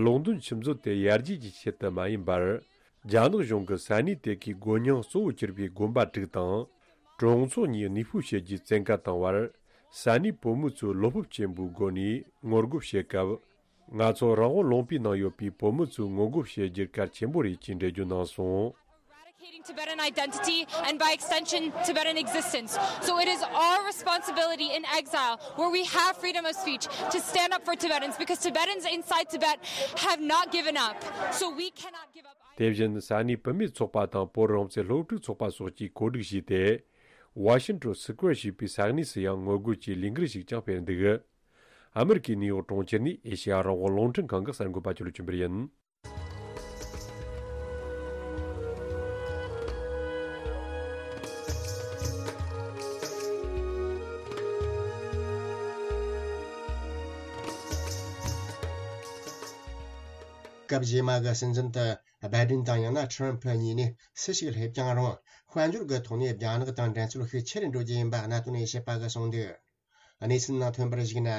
གློག་འདོན་ཆུ་མཛོད་དེ་ཡར་རྒྱས་ཀྱི་ཆེད་དུ་མ་ཡིན་པར། རྒྱ་ནག་གཞུང་གིས་ས་གནས་དེ་གའི་སྒོ་རྙིང་གཙོ་བོ་གྱུར་པའི་དགོན་པ་དྲུག་དང་། གྲོང་ཚོ་གཉིས་གནས་སྤོས་བྱེད་རྒྱུའི་བཙན་བཀའ་བཏང་བར། ས་གནས་བོད་མི་ཚོས་བློ་སྤོབས་ཆེན་པོའི་སྒོ་ནས་ངོ་རྒོལ་བྱེད་སྐབས། ང་ཚོ་རང་དབང་ལུང་པའི་ནང་ཡོད་པའི་བོད་མི་ཚོས་ངོ་རྒོལ་བྱེད་རྒྱུར་གལ་ཆེན་པོ་རེད་ཅེས་འགྲེལ་བརྗོད་གནང་སོང་། Eradicating Tibetan identity and, by extension, Tibetan existence. So it is our responsibility in exile, where we have freedom of speech, to stand up for Tibetans, because Tibetans inside Tibet have not given up. So we cannot give up either. དེ་བཞིན་ས་གནས་བུད་མེད་ཚོགས་པ་དང་བོད་རང་བཙན་སློབ་ཕྲུག་ཚོགས་པ་སོགས་ཀྱིས་གོ་སྒྲིག་བྱས་ཏེ། Washington Square ཞེས་པའི་ས་གནས་སུ་ཡང་ངོ་རྒོལ་གྱི་ལས་འགུལ་ཞིག་ཀྱང་སྤེལ་འདུག་ཨ་མེ་རི་ཀའི་ནིའུ་ཡོག་གྲོང་ཁྱེར་ནས་ཨེ་ཤེ་ཡ་རང་དབང་རླུང་འཕྲིན་ཁང་གི་གསར་འགོད་པ་ཅོ་ལི་ཆོས་འཕེལ་ཡིན། སྐབས་རྗེས་མ་གི་སྲིད་འཛིན་དུ་སྦའི་ཏིན་དང་ཡང་ན་ཁྲི་རམ་ཕུ་གཉིས་ནས་སུ་ཞིག་སླེབས་ཀྱང་རུང་། དཔལ་འབྱོར་གྱི་ཐོག་ནས་རྒྱ་ནག་དང་འགྲན་རྩོད་ཤུགས་ཆེ་རུ་འགྲོ་རྒྱུ་ཡིན་པ་གནད་དོན་དབྱེ་ཞིབ་པ་གིས་གསུངས་འདུག་གནས་ཚུལ་ནང་ཐོན་པར་གཞིགས་ན།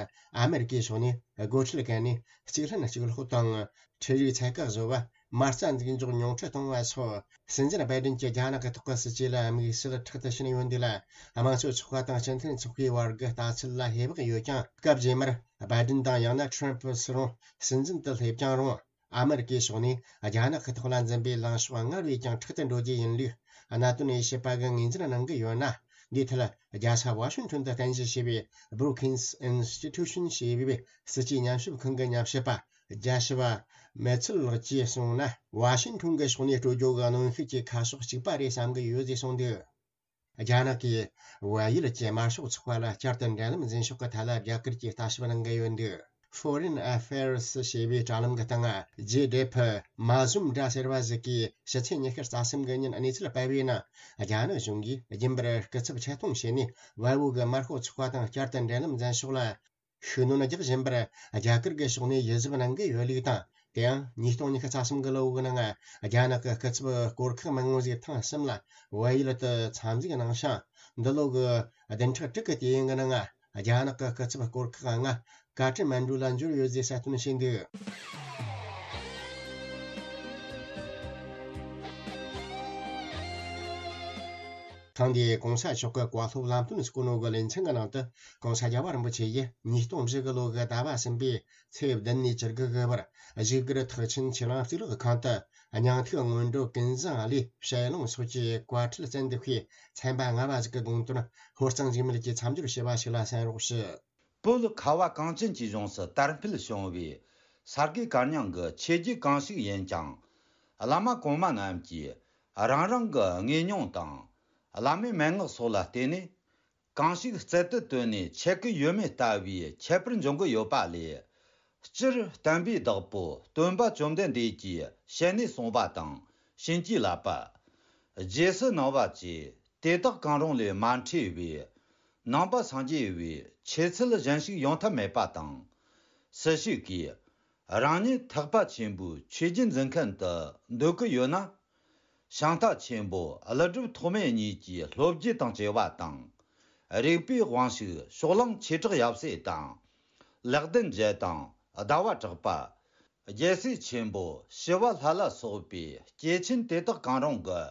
ཨ་མེ་རི་ཀའི་ཕྱོགས་ནས་སྒོ་ཁྲལ་བཀལ་ནས་གཅིག་ལྷན་གཅིག་ལྷོད་དང་། ཁྲལ་རིགས་ཚད་བཀག་བཟོ་བ། མ་རྩ་འཛུགས་འཇོག་ཉུང་འཕྲི་གཏོང་བ་སོགས། སྲིད་འཛིན་བའི་ཌེན་གྱིས་རྒྱ་ནག་གི་ཐོག་གི་སྲིད་ཇུས་ལ་དམིགས་བསལ་ཁྲག་ཏུ་ཕྱིན་ཡོད་འདུག་ལ། དམངས་གཙོ་ཚོགས་པ་དང་སྤྱི་མཐུན་ཚོགས་པའི་བར་གྱི་ལྟ་ཚུལ་ལ་ཧེ་བག་ཡོད་ཀྱང་། སྐབས་རྗེས་མར་བའི་ཌེན་དང་ཡང་ན་ཁྲམ་ཕུ་སུ་རུང་སྲིད་འཛིན་དུ་སླེབས་ཀྱང་རུང་། ཨ་མེ་རི་ཀའི་ཕྱོགས་ནས་རྒྱ་ནག་གི་ཐོག་ལ་འཛིན་པའི་ལངས་ཕྱོགས་སྔར་བས་ཀྱང་ཁྲག་ཏུ་འགྲོ་རྒྱུ་ཡིན་ལུགས་གནད་དོན་དབྱེ་ཞིབ་པ་གིས་ངོས་འཛིན་གནང་གི་ཡོད་ན། འདིའི་ཐད་རྒྱལ་ས་ཝ་ཤིང་ཊོན་དུ་རྟེན་གཞི་བྱས་པའི་Brookings Institution ཞེས་པའི་སྲིད་ཇུས་ཉམས་ཞིབ་ཁང་གི་ཉམས་ཞིབ་པ་རྒྱ་ཞི་བ་མེ་ཚིལ་ལགས་ཀྱིས་གསུངས་ན། ཝ་ཤིང་ཊོན་གྱི་ཕྱོགས་ནས་སྤྲོད་རྒྱུ་གི་གནོན་ཤུགས་ཀྱི་ཁ་ཕྱོགས་གཅིག་པ་རེད་བསམ་གྱི་ཡོད་ཅེས་གསུངས་འདུག་རྒྱ་ནག་གིས་བལ་ཡུལ་གྱི་དམར་ཤོག་ཚོགས་པ་ལ་བསྐྱར་དུ་འབྲེལ་ལམ་འཛིན་ཕྱོགས་ཀྱི་ཐད་ལ་རྒྱ་གར་གྱིས་ལྟ་ཞིབ་གནང་གི་ཡོད་འདུག Foreign Affairs ཞེས་པའི་དྲ་ལམ་གྱི་སྟེང་། ཇེ་ཌེ་ཕི་མ་ཟུམ་དྲ་ཟེར་བ་ཞིག་གིས་ཕྱི་ཚེས་ཉི་ཤུ་རྩ་གསུམ་གྱི་ཉིན་གནས་ཚུལ་སྤེལ་བའི་ནང་། རྒྱ་ནག་གཞུང་གིས་རྒྱུན་པར་སྐུ་ཚབ་ཆེད་གཏོང་བྱས་ནས། བལ་པོ་གི་དམར་ཤོག་ཚོགས་པ་དང་བསྐྱར་དུ་འབྲེལ་ལམ་འཛིན་ཕྱོགས་ལ་ཤུགས་སྣོན་རྒྱག་བཞིན་པར། རྒྱ་གར་གྱི་ཕྱོགས་ནས་ཡིད་གཟབ་གནང་གི་ཡོད་ལུགས་དང་། དེ་ཡང་ཉིས་སྟོང་ཉི་ཤུ་རྩ་གསུམ་གྱི་ལོ་འགོའི་ནང་། རྒྱ་ནག་གི་སྐུ་ཚབ་སྐོར་ཁག་མང་བོ་ཞིག་ཐེངས་གསུམ་ལ་བལ་ཡུལ་དུ་འཚམས་གཟིགས་གནང་ཞིང་། འདི་ལོ་གི་བདུན་ཕྲག་དྲུག་གི་དུས་ཡུན་གྱི་ནང་། རྒྱ་ནག་གི་སྐུ་ཚབ་སྐོར་ཁག་ལྔ་ཀ་ཏ་མན་གྲུ་ལ་འབྱོར་ཡོད་ཅེས་གསལ་སྟོན་བྱས་འདུག་ཐེངས་འདིའི་གོང་ས་མཆོག་གི་བཀའ་སློབ་ལམ་སྟོན་སྐུ་ནོ་གི་ལེ་ཚན་གྱི་ནང་དུ། གོང་ས་རྒྱལ་བ་རིན་པོ་ཆེ་ཡིས་ཉིས་སྟོང་བཞི་གི་ལོ་གི་ཟླ་བ་གསུམ་པའི་ཚེས་བདུན་ནས་བཅུ་དགུ་གི་བར། བཞུགས་སྒར་ཐེག་ཆེན་ཆོས་གླིང་གཙུག་ལག་ཁང་དུ། སྙིང་ཐིག་སྔོན་འགྲོ་ཀུན་བཟང་བློའི་ཞལ་ལུང་སོགས་ཀྱི་བཀའ་ཁྲིད་བཙན་དུ་ཕུལ། ཚན་པ་ལྔ་པ་ཞིག་གི་དགོངས་དོན་ཧོར་གཙང་འཇིགས་མེད་ཀྱིས་མཚམས་སྦྱོར་བྱས་པ་ཞིག་ལ་གསན་རོགས་ཞུ། བོད་ཁ་བ་གངས་ཅན་གྱི་ལྗོངས་སུ་དར་འཕེལ་བྱུང་བའི་ས་དགེ་བཀའ་རྙིང་གི་ཆོས་བརྒྱུད་གང་ཞིག་ཡིན་ཀྱང་། བླ་མ་གོང་མ་རྣམས་ཀྱིས་རང་རང་གི་དངོས་མྱོང་དང་། བླ་མའི་མན་ངག་སོགས་ལ་བརྟེན་ནས། གང་ཞིག་རྩལ་དུ་བཏོན་ནས་འཆད་ཀྱི་ཡོད་མེད་ལྟ་བུའི་ཁྱད་པར་འབྱུང་གི་ཡོད་པ་ལས། སྤྱིར་བསྟན་པའི་བདག་པོ་སྟོན་པ་བཅོམ་ལྡན་འདས་ཀྱིས་ཞལ་ནས་གསུངས་པ་དང་བྱིན་གྱིས་བརླབས་པ། རྗེས་སུ་གནང་བ་བཅས་དེ་དག་གང་རུང་ལས་མ་འཕྲོས་པའི་ནང་པ་སངས་རྒྱས་པའི་ཆོས་ཚུལ་གཞན་ཞིག་ཡོང་ཐབས་མེད་པ་དང་། སུ་ཞིག་གིས་རང་ཉིད་ཐེག་པ་ཆེན་པོའི་ཆོས་བརྒྱུད་འཛིན་མཁན་དུ་འདོད་ཀྱི་ཡོད་ན། ཤིང་རྟ་ཆེན་པོ་ཀླུ་སྒྲུབ་ཐོགས་མེད་གཉིས་ཀྱི་སློབ་བརྒྱུད་དང་བཅས་པ་དང་། རིག་པའི་དབང་ཕྱུག་ཕྱོགས་གླང་ཆོས་གྲགས་ཡབ་སྲས་དང་། ལེགས་ལྡན་འབྱེད་དང་ཟླ་བ་གྲགས་པ། རྒྱལ་སྲས་ཆེན་པོ་ཞི་བ་ལྷ་ལ་སོགས་པའི་སྐྱེས་ཆེན་དེ་དག་གང་རུང་གི་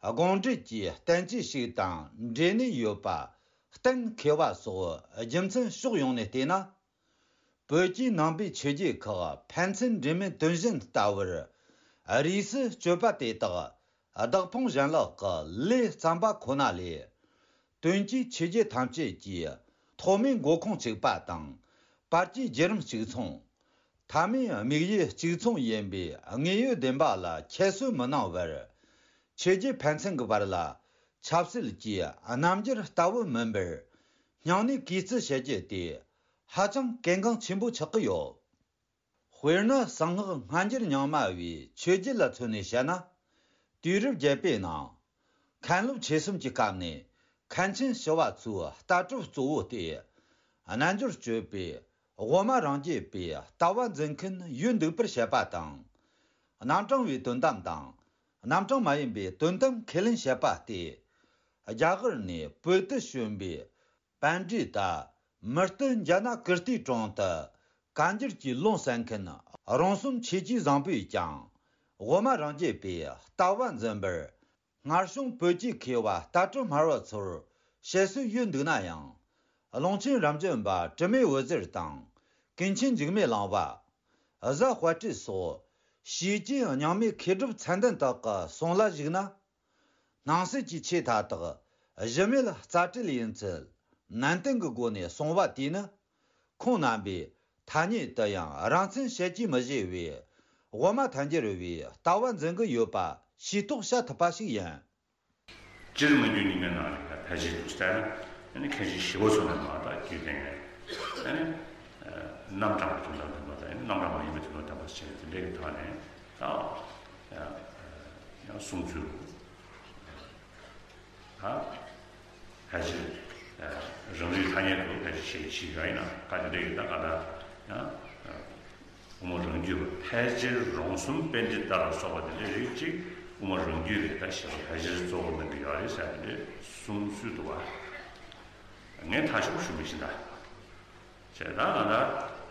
དགོངས་འགྲེལ་གྱི་བསྟན་བཅོས་ཤིག་དང་འབྲེལ་ནས་ཡོད་པ་གཏན་འཁེལ་བ་སོགས་རྒྱུ་མཚན་ཕྱོགས་ཡོངས་ནས་བལྟས་ན། བོད་ཀྱི་ནང་པའི་ཆོས་བརྒྱུད་ཁག་ཕན་ཚུན་འབྲེལ་མེད་དོན་གཞན་ལྟ་བུར་རིས་སུ་གཅོད་པ་དེ་དག་བདག་ཕུང་གཞན་ལག་གི་ལས་བརྩམས་པ་ཁོ་ན་ལས། དོན་གྱིས་ཆོས་བརྒྱུད་ཐམས་ཅད་ཀྱི་ཐོག་མའི་འགོ་ཁུངས་གཅིག་པ་དང་། བར་གྱི་བརྒྱུད་རིམ་གཅིག་མཚུངས། མཐའ་མའི་དམིགས་ཡུལ་གཅིག་མཚུངས་ཡིན་པའི་དངོས་ཡོད་བདེན་པ་ལ་ཁྱད་གསོད་མི་གནང་བར། ཆོས་བརྒྱུད་ཕན་ཚུན་གྱི་བར་ལ་ཆབ་སྲིད་ཀྱི་རྣམ་འགྱུར་ལྟ་བུ་མིན་པར། སྙིང་ནས་གུས་བརྩི་བྱེད་རྒྱུ་དེ་ཧ་ཅང་གལ་འགངས་ཆེན་པོ་ཆགས་ཀྱི་ཡོད། དཔེར་ན་གསང་སྔགས་སྔ་འགྱུར་རྙིང་མ་བའི་ཆོས་བརྒྱུད་ལ་མཚོན་ནས་བཤད་ན། དུས་རབས་བརྒྱད་པའི་ནང་། མཁན་སློབ་ཆོས་གསུམ་གྱི་སྐབས་ནས་མཁན་ཆེན་ཞི་བ་འཚོའི་ལྟ་གྲུབ་གཙོ་བོ་སྟེ། རྣལ་འབྱོར་སྤྱོད་པའི་དབུ་མ་རང་རྒྱུད་པའི་ལྟ་བ་འཛིན་མཁན་ཡོད་འདུག་པར་བཤད་པ་དང་། རྣམ་གྲངས་པའི་དོན་དམ་དང་། རྣམ་གྲངས་མ་ཡིན་པའི་དོན་དམ་ཁས་ལེན་བྱེད་པ་སྟེ། རྒྱ་གར་ནས་བོད་དུ་བྱོན་པའི་པཎྜི་ཏ་མུ་སྟེགས་ཛྙཱ་ན་ཀིརྟིའི་དྲུང་དུ་བཀའ་འགྱུར་གྱི་ལུང་གསན་མཁན་རོང་ཟོམ་ཆོས་ཀྱི་བཟང་པོས་ཀྱང་དབུ་མ་རང་རྒྱུད་པའི་ལྟ་བ་འཛིན་པར། སྔར་བྱུང་བོད་ཀྱི་མཁས་པ་ལྟ་གྲུབ་སྨྲ་བ་ཚོར་བཤད་སྲོལ་ཡོད་འདུག་ན་ཡང་། ཀློང་ཆེན་རབ་འབྱམས་པ་དྲི་མེད་འོད་ཟེར་དང་། ཀུན་མཁྱེན་འཇིགས་མེད་གླིང་པ། གཟའ་དཔལ་སྤྲུལ་སོགས་ཕྱིས་ཀྱི་རྙིང་མའི་མཁས་གྲུབ་མཚན་ལྡན་དག་གི་གསུང་ལ་གཞིགས་ན། སྣང་སྲིད་ཀྱི་ཆོས་མཐའ་དག་གཞི་མེད་རྩ་བྲལ་ཡིན་ཚུལ་ནན་ཏན་གྱི་སྒོ་ནས་གསུངས་པ་དེས་ནི། ཁོང་རྣམ་པས་ཐ་སྙད་དུ་ཡང་རང་མཚན་བཤད་ཀྱིས་མི་བཞེད་པའི་དབུ་མ་ཐལ་འགྱུར་བའི་ལྟ་བ་འཛིན་གྱི་ཡོད་པ་ཤེས་རྟོགས་བྱ་ཐུབ་པ་ཞིག་ཡིན། སྤྱིར་མི་རྒྱུད་རྙིང་མའི་ནང་ལ་ཕལ་ཆེར་དུ་བལྟས་ན། ཨ་ནི་མཁན་ཆེན་ཞི་བ་འཚོ་ནས་མར་ད་རྒྱུད་སྟོན་ཡས། ཨ་ནི་རྣམ་གྲངས་ཀྱི་དོན་དམ་བདེན་པ་དང་། རྣམ་གྲངས་མ་ཡིན་པའི་དོན་དམ་བདེན་པ་ཞེས་དེ་འདྲའི་གི་ཐོག་ནས་ད་ཡང་གསུང་ཚུལ་ད་ཕལ་ཆེར་རང་རིག་ཐ་སྙད་དུ་ཕལ་ཆེར་བཤད་ཀྱི་ཡོད་ཡིན་ན། ཁ་དེ་འདྲའི་གི་ད་ག་ད་ཡང་དབུ་མ་རང་རྒྱུད་པ་ཕལ་ཆེར་རོང་ཟོམ་པཎྜི་ཏ་ལ་སོགས་པ་དེ་འདྲའི་རིགས་གཅིག་དབུ་མ་རང་རྒྱུད་ལས་ད་ཞེས་པ་ཕལ་ཆེར་གཙོ་བོ་གནང་གི་ཡོད་རེད་ཟེར་ནས་གསུང་སྲོལ་འདུག་བ། ངས་ཐག་ཆོད་པོ་ཞུ་མི་ཤེས་ད། བྱས་ད་ང་ད་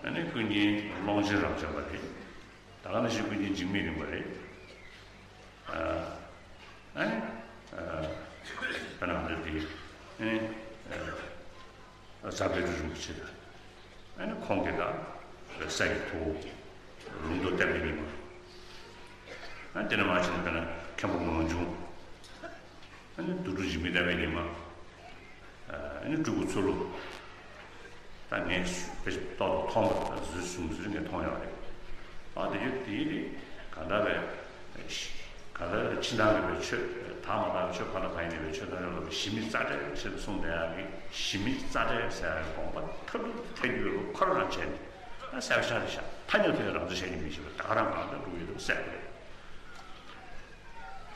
ཨ་ནི་ཀུན་མཁྱེན་ཀློང་ཆེན་རབ་འབྱམས་པ་རེད། ད་ག་ནང་བཞིན་ཀུན་མཁྱེན་འཇིགས་མེད་གླིང་པ་རེད། ཨ་ནི་ཨ་ད་ནང་འདི་དེ་ཨ་ནི་ཨ་རྫ་དཔལ་སྤྲུལ་རིན་པོ་ཆེ་དང་། ཨ་ནི་ཁོང་གི་དང་། སྲས་ཀྱི་ཐུ་བོ། ལུང་རྟོགས་བསྟན་པའི་ཉི་མ། ཨ་དེ་ནས་མར་ཕྱིན་ནས་དཔེར་ན་མཁན་པོ་ངག་འབྱུང་། ཨ་ནི་དུར་ཁྲོད་འཇིགས་མེད་བསྟན་པའི་ཉི་མ། ཨ་ནི་སྤྲུལ་སྐུ་ཚུལ་ལུ། ད་ངས་དཔེ་ཏོག་ཏོག་མཐོང་བ་དང་བཟོས་བཟུང་ཟེར་ངས་མཐོང་ཡོད་རེད། ཨ་དེ་ཡོད་དེ་ཡིན་དེ་ག་འདྲ་བས། ག་ད་ཕྱི་ནང་གི་བའི་ཆོས་དག་མ་དག་ཆོས་ཕ་ན་ཕ་ཡིན་ནི་བའི་ཆོས་དང་རེ་ལོ་བའི་ཞི་མི་རྩ་བྲལ་ཞེས་གསུངས་བསྡད་ཡག་གི་ཞི་མི་རྩ་བྲལ་ཟེར་ཡག་གི་དགོངས་པ་ཐབས་སྡུག་ཐལ་འགྱུར་ལུགས་ཁོ་རང་བྱས་ནས་ཨ་གསལ་བཤད་རེད་ཤག་ཐ་སྙད་ཐོག་རང་བཙན་བཤད་ཀྱི་མི་ཤེས་པ་ད་ག་རང་གང་ལྟར་འགྲོ་གི་ཡོད་དུ་གསལ་པོ་རེད།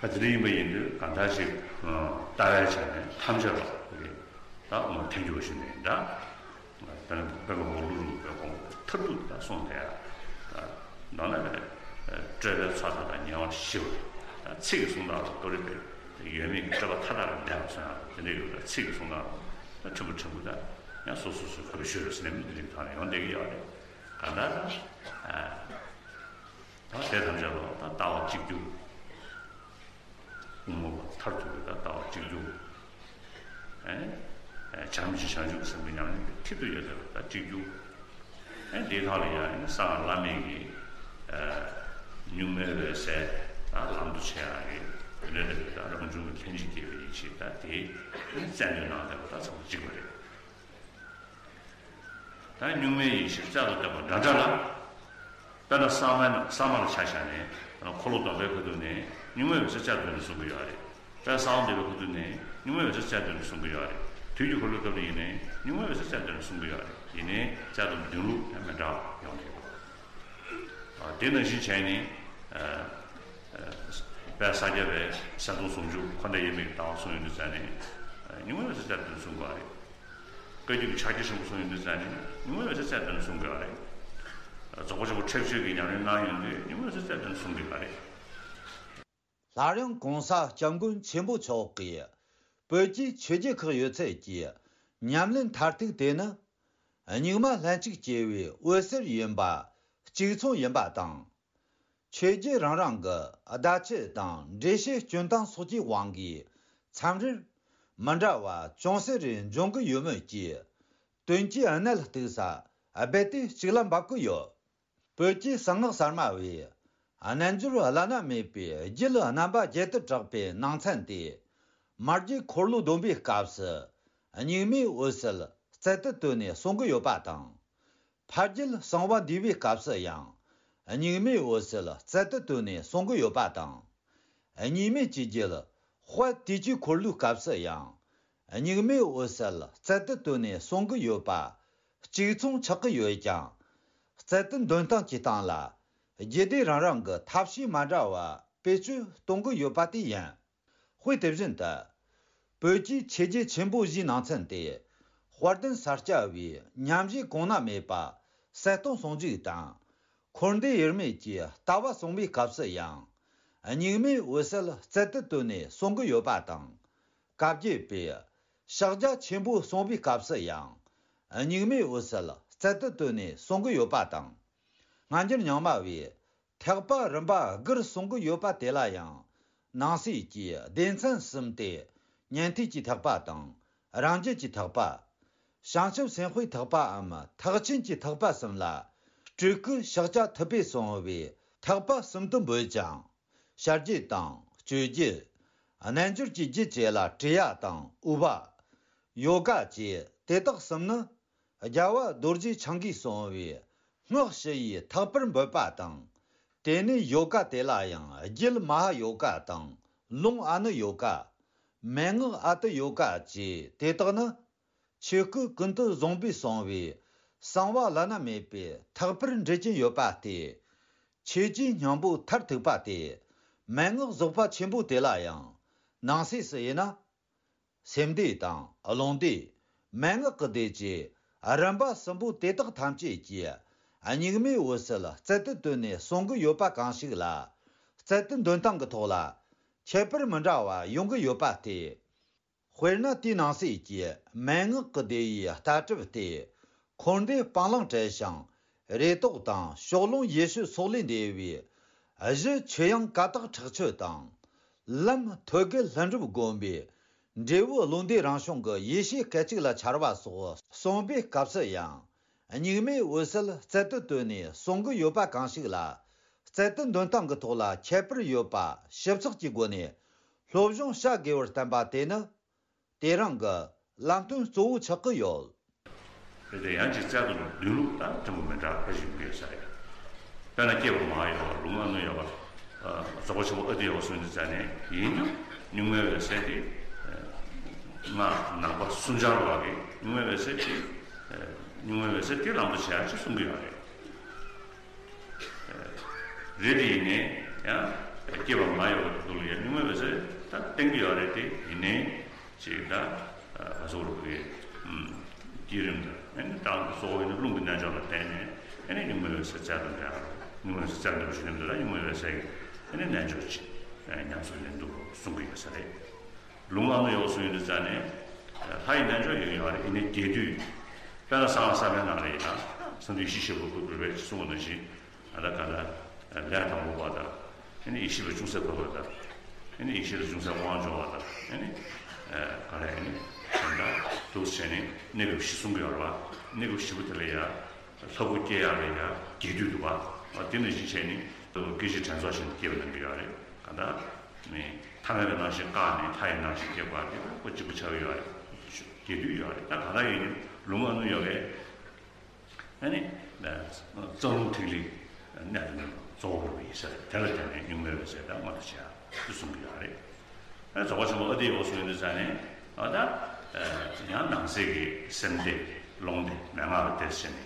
ཨ་དེ་འདྲ་ཡིན་པ་ཡིན་དུས་གང་ལྟར་ཞིག་ལྟ་བའི་ཆ་ནས་ཐམས་ཅད་ལ་རེད་ད་འོ་ཐལ་འགྱུར་བ་ཞུ་ནས་འདྲ། དཔེར་ན་དཔེ་མ་འོག་ལུགས་ལུགས་པའི་དགོངས་པ་མཐར་ཐུག་ཏུ་གསུངས་ཏེ། མདོར་ན་སྤྲོས་པའི་ཚོགས་མཐའ་དག་ཉེ་བར་ཞི་བ། ཚིག་གི་གསུང་སྟངས་ལ་ཏོ་རེ་པའི་ཡོད་མེད་ཀྱི་སྤྲོས་པ་མཐའ་དག་ལས་འདས་པ་སོང་ཡང་དེ་འདྲ་ཡོད་པའི་ཚིག་གི་གསུང་སྟངས་ལ་ཕྲན་བུ་ཕྲན་བུ་དང་ཡང་སོ་སོ་སོའི་གོ་རེ་ཤོད་རེ་ཟེར་ནས་མི་དེ་རིང་ཐང་ལ་ཡོང་བསྡད་ཀྱི་ཡོད་རེད། གང་ལྟར་ད་དེ་ཐམས་ཅད་ལ་ད་ལྟ་བ་གཅིག་གྱུར། དབུ་མ་པ་མཐར་ཐུག་པའི་ད་ལྟ་བ་གཅིག་གྱུར། ཨེ། བྱམས་ཆེན་བྱང་ཆུབ་སེམས་དཔའི་ཉམས་ལེན་གྱི་མཐིལ་དུ་ཡོད་ཟེར་བ་ད་གཅིག་གྱུར། ཨེ་དེའི་ཐོག་ལ་ཡང་ཨེ་གསང་སྔགས་བླ་མེད་ཀྱི་ཨེ་གཉུག་མའི་འོད་གསལ་ད་ལམ་དུ་བྱེད་ཡག་གི་འོད་ལས་ད་རང་བྱུང་གི་ལྷན་ཅིག་སྐྱེས་པའི་ཡེ་ཤེས་ད་དེ་ཨེ་བཙན་པོའི་ནང་དེ་བ་ད་ཚང་མ་གཅིག་པ་རེད། ད་གཉུག་མའི་ཡེ་ཤེས་རྩལ་དུ་བཏོན་པ་འདྲ་འདྲ་ལ། དཔེར་ན་གསང་བའི་ནང་གསང་བ་ལ་ཆ་བཞག་ནས་འཁོར་ལོ་སྡོམ་པའི་ཁ་ཐུག་ནས་གཉུག་མའི་འོད་གསལ་རྩལ་དུ་བཏོན་ནས་གསུང་གི་ཡོད་རེད། དཔེར་ན་གསང་བ་འདུས་པའི་ཁ་ཐུག་ནས་གཉུག་མའི་འོད་གསལ་རྩལ་དུ་བཏོན་ནས་གསུང་གི་ཡོད་རེད། དུས་ཀྱི་འཁོར་ལོའི་སྐབས་ནས་ཡིན་ནའི་གཉུག་མའི་འོད་གསལ་རྩལ་དུ་བཏོན་ནས་གསུང་གི་ཡོད་རེད། ཡིན་ནའི་རྩལ་དུ་འདོན་ལུགས་ཡང་མི་འདྲ་བ་ཡོང་གི་ཡོད། དེ་ནང་བཞིན་བྱས་ནས་དཔལ་ས་སྐྱ་པའི་གསལ་སྟོང་ཟུང་འཇུག་འཁོར་འདས་དབྱེར་མེད་ཀྱི་ལྟ་བ་གསུངས་ཡོང་དུས་ཙང་ནས་གཉུག་མའི་འོད་གསལ་རྩལ་དུ་བཏོན་ནས་གསུང་གི་ཡོད་རེད། བཀའ་བརྒྱུད་ཀྱི་ཕྱག་རྒྱ་ཆེན་པོ་གསུང་ཡོང་དུས་ཙང་ནས་གཉུག་མའི་འོད་གསལ་རྩལ་དུ་བཏོན་ནས་གསུང་དགོས་པ་རེད། རྫོགས་པ་ཆེན་པོ་ཁྲེགས་ཆོད་ཀྱི་ཉམས་ལེན་གནང་ཡོང་དུས་གཉུག་མའི་འོད་གསལ་རྩལ་དུ་བཏོན་ནས་གསུང་དགོས་པ་རེད། སླར་ཡང་གོང་ས་སྐྱབས་མགོན་ཆེན་པོ་མཆོག་གིས་བོད་ཀྱི་ཆོས་བརྒྱུད་ཁག་ཡོད་ཚད་ཀྱི་ཉམས་ལེན་མཐར་ཐུག་དེ་ནི་གཉུག་མ་ལྷན་ཅིག་སྐྱེས་པའི་འོད་ཟེར་ཡིན་པ་གཅིག་མཚུངས་ཡིན་པ་དང་། ཆོས་བརྒྱུད་རང་རང་གི་བརྡ་ཆད་དང་འགྲེལ་བཤད་སྐྱོན་སྟངས་སོགས་ཀྱི་དབང་གིས་མཚམས་རེར་མི་འདྲ་བ་ཅུང་ཟད་རེ་འབྱུང་གི་ཡོད་མོད་ཀྱི། དོན་གྱི་གནད་གཏུགས་ས་རྦད་དེ་གཅིག་ལ་འབབ་ཀྱི་ཡོད། བོད་ཀྱི་གསང་སྔགས་གསར་མ་བས་རྣལ་འབྱོར་བླ་ན་མེད་པའི་རྒྱུད་རྣམ་པ་བརྒྱད་དུ་གྲགས་པའི་ནང་ཚན་ཏེ། མ་རྒྱུད་འཁོར་ལོ་སྡོམ་པའི་སྐབས་སུ་གཉུག་མའི་འོད་གསལ་རྩལ་དུ་བཏོན་ནས་གསུང་གི་ཡོད་པ་དང་། ཕ་རྒྱུད་གསང་བ་འདུས་པའི་སྐབས་སུ་ཡང་གཉུག་མའི་འོད་གསལ་རྩལ་དུ་བཏོན་ནས་གསུང་གི་ཡོད་པ་དང་། གཉིས་མེད་ཀྱི་རྒྱུད་དཔལ་དུས་ཀྱི་འཁོར་ལོའི་སྐབས་སུ་ཡང་གཉུག་མའི་འོད་གསལ་རྩལ་དུ་བཏོན་ནས་གསུང་གི་ཡོད་པ་གཅིག་མཚུངས་ཆགས་ཀྱི་ཡོད་ཀྱང་། རྩལ་དུ་འདོན་སྟངས་ཀྱི་སྟེང་ལ་རྒྱུད་སྡེ་རང་རང་གི་ཐབས་ཤེས་མ་འདྲ་བ་བེད་སྤྱོད་གཏོང་གི་ཡོད་པ་དེ་ཡིན། དཔེ་དེ་བཞིན་དུ། བོད་ཀྱི་ཆོས་བརྒྱུད་ཆེན་པོ་བཞིའི་ནང་ཚན་ཏེ། དཔལ་ལྡན་ས་སྐྱ་པའི་ཉམས་བཞེས་གོང་ན་མེད་པ་གསལ་སྟོང་ཟུང་འཇུག་དང་། འཁོར་འདས་དབྱེར་མེད་ཀྱི་ལྟ་བ་གསུངས་པའི་སྐབས་སུ་ཡང་། གཉུག་མའི་འོད་གསལ་རྩལ་དུ་བཏོན་ནས་གསུང་གི་ཡོད་པ་དང་། བཀའ་བརྒྱུད་པས་ཕྱག་རྒྱ་ཆེན་པོ་གསུངས་པའི་སྐབས་སུ་ཡང་། གཉུག་མའི་འོད་གསལ་རྩལ་དུ་བཏོན་ནས་གསུང་གི་ཡོད་པ་དང་། སྔ་འགྱུར་རྙིང་མ་བས་ཐེག་པ་རིམ་པ་དགུར་གསུང་གི་ཡོད་པ་དེ་ལ་ཡང་། ནང་གསེས་ཀྱི་སྡེ་ཚན་གསུམ་སྟེ། ཉན་ཐོས་ཀྱི་ཐེག་པ་དང་། རང་རྒྱུད་ཀྱི་ཐེག་པ། བྱང་ཆུབ་སེམས་དཔའི་ཐེག་པའམ་ཐེག་ཆེན་གྱི་ཐེག་པ་གསུམ་ལ། སྤྲུལ་སྐུའི་ཕྱག་རྒྱ་ཐུབ་པས་གསུངས་པའི་ཐེག་པ་གསུམ་དུ་འབོད་ཅིང་། བྱ་རྒྱུད་དང་སྤྱོད་རྒྱུད། རྣལ་འབྱོར་གྱི་རྒྱུད་བཅས་ལ་ཀྲི་ཡ་དང་ཨུ་པ། ཡོ་ག་བཅས་དེ་དག་གསུམ་ནི། རྒྱལ་བ་རྡོ་རྗེ་འཆང་གིས་གསུངས་པའི་སྔགས་ཞུ་ཡི་ཐེག་པར་འབོད་པ་དང་། དེ་ནས་ཡོ་ག་དེ་ལ་ཡང་རྒྱུད་མ་ཧཱ་ཡོ་ག་དང་ལུང་ཨ་ནུ་ཡོ་ག། མན་ངག་ཨ་ཏི་ཡོ་ག་བཅས་དེ་དག་ནི། ཆོས་སྐུ་ཀུན་ཏུ་བཟུང་པས་གསུངས་པའི་གསང་བ་བླ་ན་མེད་པའི་ཐེག་པར་འགྲེལ་གྱིན་ཡོད་པ་སྟེ། ཆོས་ཀྱི་སྙིང་པོ་མཐར་ཐུག་པ་སྟེ། མན་ངག་རྫོགས་པ་ཆེན་པོ་དེ་ལ་ཡང་ནང་གསེས་སུ་དབྱེ་ན། སེམས་སྡེ་དང་ལུང་སྡེ། མན་ངག་གི་སྡེ་བཅས་རིམ་པ་གསུམ་པོ་དེ་དག་ཐམས་ཅད་ཀྱིས་གཉུག་མའི་འོད་གསལ་རྩལ་དུ་བཏོན་ནས་གསུང་གི་ཡོད་པ་གང་ཞིག་ལ། རྩལ་དུ་འདོན་སྟངས་ཀྱི་ཐོག་ལ། ཁྱད་པར་མི་འདྲ་བ་ཡོང་གི་ཡོད་པ་སྟེ། དཔེར་ན་དེའི་ནང་གསེས་ཀྱི་མན་ངག་གི་སྡེ་བའི་ལྟ་གྲུབ་སྟེ། འཁོར་འདས་སྤང་བླང་བྲལ་ཞིང་རེ་དོགས་དང་ཕྱོགས་ལྷུང་ཡེ་ཤེས་སོགས་ལས་འདས་པའི་གཞི་ཆོས་དབྱིངས་ཀ་དག་ཁྲག་ཆོད་དང་། ལམ་ཐོད་རྒལ་ལྷུན་གྲུབ་བསྒོམ་པའི་འབྲས་བུ་བློ་འདས་རང་བྱུང་གི་ཡེ་ཤེས་སྐད་ཅིག་ལ་འཆར་བ་སོགས་གསུངས་པའི་སྐབས་སུ་ཡང་། གཉུག་མའི་འོད་གསལ་རྩལ་དུ་བཏོན་ནས་གསུང་གི་ཡོད་པ་གང་ཞིག་ལ། རྩལ་དུ་འདོན་སྟངས་ཀྱི་ཐོག་ལ་ཁྱད་པར་ཡོད་པ་ཞིབ་ཚགས་ཀྱི་སྒོ་ནས་སློབ་སྦྱོང་བྱ་དགོས་པར་བསྟན་པ་དེ་ནི། དེ་རང་གི་ལམ་སྟོན་གཙོ་བོ་ཆགས་ཀྱི་ཡོད། རེད་དེ། ཡང་ཅིག་རྩལ་དུ་འདོན་ལུགས་དང་ཕྲན་བུ་མི་འདྲ་བ་ཞིག་ཡོད་ས་རེད། དཔེར་ན་སྐྱེས་པ་མ་ཡོད་པ། ལུང་ཨ་ནུ་ཡོད་པ། རྫོགས་པ་ཆེན་པོ་ཨ་ཏི་ཡོད་པ་སོགས་ཀྱི་རྩལ་ནས་ཡིན་ཀྱང་གཉུག་མའི་འོད་གསལ་དེ། སྔགས་ནང་པ་སུམ་ཆར་བ་གིས་གཉུག་མའི་འོད་གསལ་དེ། གཉུག་མའི་འོད་གསལ་དེ་ལམ་དུ་བྱེད་ཡག་ཅིག་གསུང་གི་ཡོད་རེད། རེད་དེ། ཡིན་ནའི་ཡང་སྐྱེས་པ་མ་ཡོད་པ་དེ་ལ་ཡང་གཉུག་མའི་འོད་གསལ་ད་བསྟན་གྱི་ཡོད་རེད་དེ། ཡིན་ནའི་ཅིག་ད་ག་ཟེར་དགོས་རེད། བསྐྱེད་རིམ་དང་ཨ་ནི་དང་གཙོ་བོ་ཡིན་ན་རླུང་གི་རྣལ་འབྱོར་ལ་བརྟེན་ནས་ཨ་ནི་གཉུག་མའི་འོད་གསལ་རྩལ་དུ་འདྲ། གཉུག་མའི་འོད་གསལ་རྩལ་དུ་འདྲ་ཞིག་ནས་འདི་ལ་གཉུག་མའི་འོད་གསལ་གྱི་ཨ་ནི་རྣལ་འབྱོར་ཅིག་ཉམས་སུ་ལེན་འདུག་གསུང་གི་ཡོད་ས་རེད། ལུང་ཨ་ནུ་ཡོད་གསུང་ཡོད་དུས་ཙང་ནས། ལྷ་ཡི་རྣལ་འབྱོར་ཡོད་ཡོད་རེད། ཡིན་ནའི་རྒྱས་བསྡུས། དཔེར་ན་གསང་བ་གསར་པའི་ནང་ལ་ཡིན་ན་གསང་འདུས་ཡེ་ཤེས་ཆེན་པོ་ཁོ་བོས་གསུངས་པ་ནང་བཞིན། ཨ་ད་ག་ད་ལས་དང་པོ་པ་དང་། ཨ་ནི་ཡེ་ཤེས་པ་ཅུང་ཟད་འཕོ་བ་དང་། ཨ་ནི་ཡེ་ཤེས་ལ་ཅུང་ཟད་དབང་འབྱོར་བ་དང་། ཨ་ནི་ག་རེ། ཨ་ནི་དེ་འདྲ་འདུག་བྱས་ནས་གནས་སྐབས་བཞི་གསུང་གི་ཡོད་རེད་བ། གནས་སྐབས་བཞི་པོ་དེ་ལ་ཡང་ལྷ་སྐུ་སྐྱེ་ཡག་ལ་ཡང་རྒྱས་བསྡུས་འདུག་བ། དེ་ནང་བཞིན་བྱས་ནས་སྐད་ཅིག་དྲན་རྫོགས་ཤིང་སྐྱེ་བ་གནང་གི་ཡོད་རེད། ག་ད་ནི་ཐ་མལ་པའི་རྣམ་ཤེས་བཀག་ནས་མཐའ་ཡས་རྣམ་ཤེས་སྐྱེ་བ་དེ་ཁོ་གཅིག་པུ་ཆགས་ཡོད་རེད། རྒྱས་བསྡུས་ཡོད་རེད། ད་ག་ད་ཡིན་ནའི་ལུང་ཨ་ནུ་ཡོད་རེད། ཨ་ནི། རྩ་རླུང་ཐིག་ལེ་གནད་དུ་གཙོ་བོར་བའི་ས་རེད། དེ་ལ་བརྟེན་ནས་གཉུག་མའི་འོད་གསལ་དང་མངོན་དུ་བྱེད་ཡག་ཅིག་གསུང་གི་ཡོད་རེད། ཨ་རྫོགས་པ་ཆེན་པོ་ཨ་ཏི་ཡོད་གསུང་ཡོད་དུས་ཙང་ནས། ཨ་ད། ཡང་ནང་གསེས་ཀྱི་སེམས་སྡེ་རླུང་སྡེ་མན་ངག་ལ་བརྟེན་བྱས་ནས།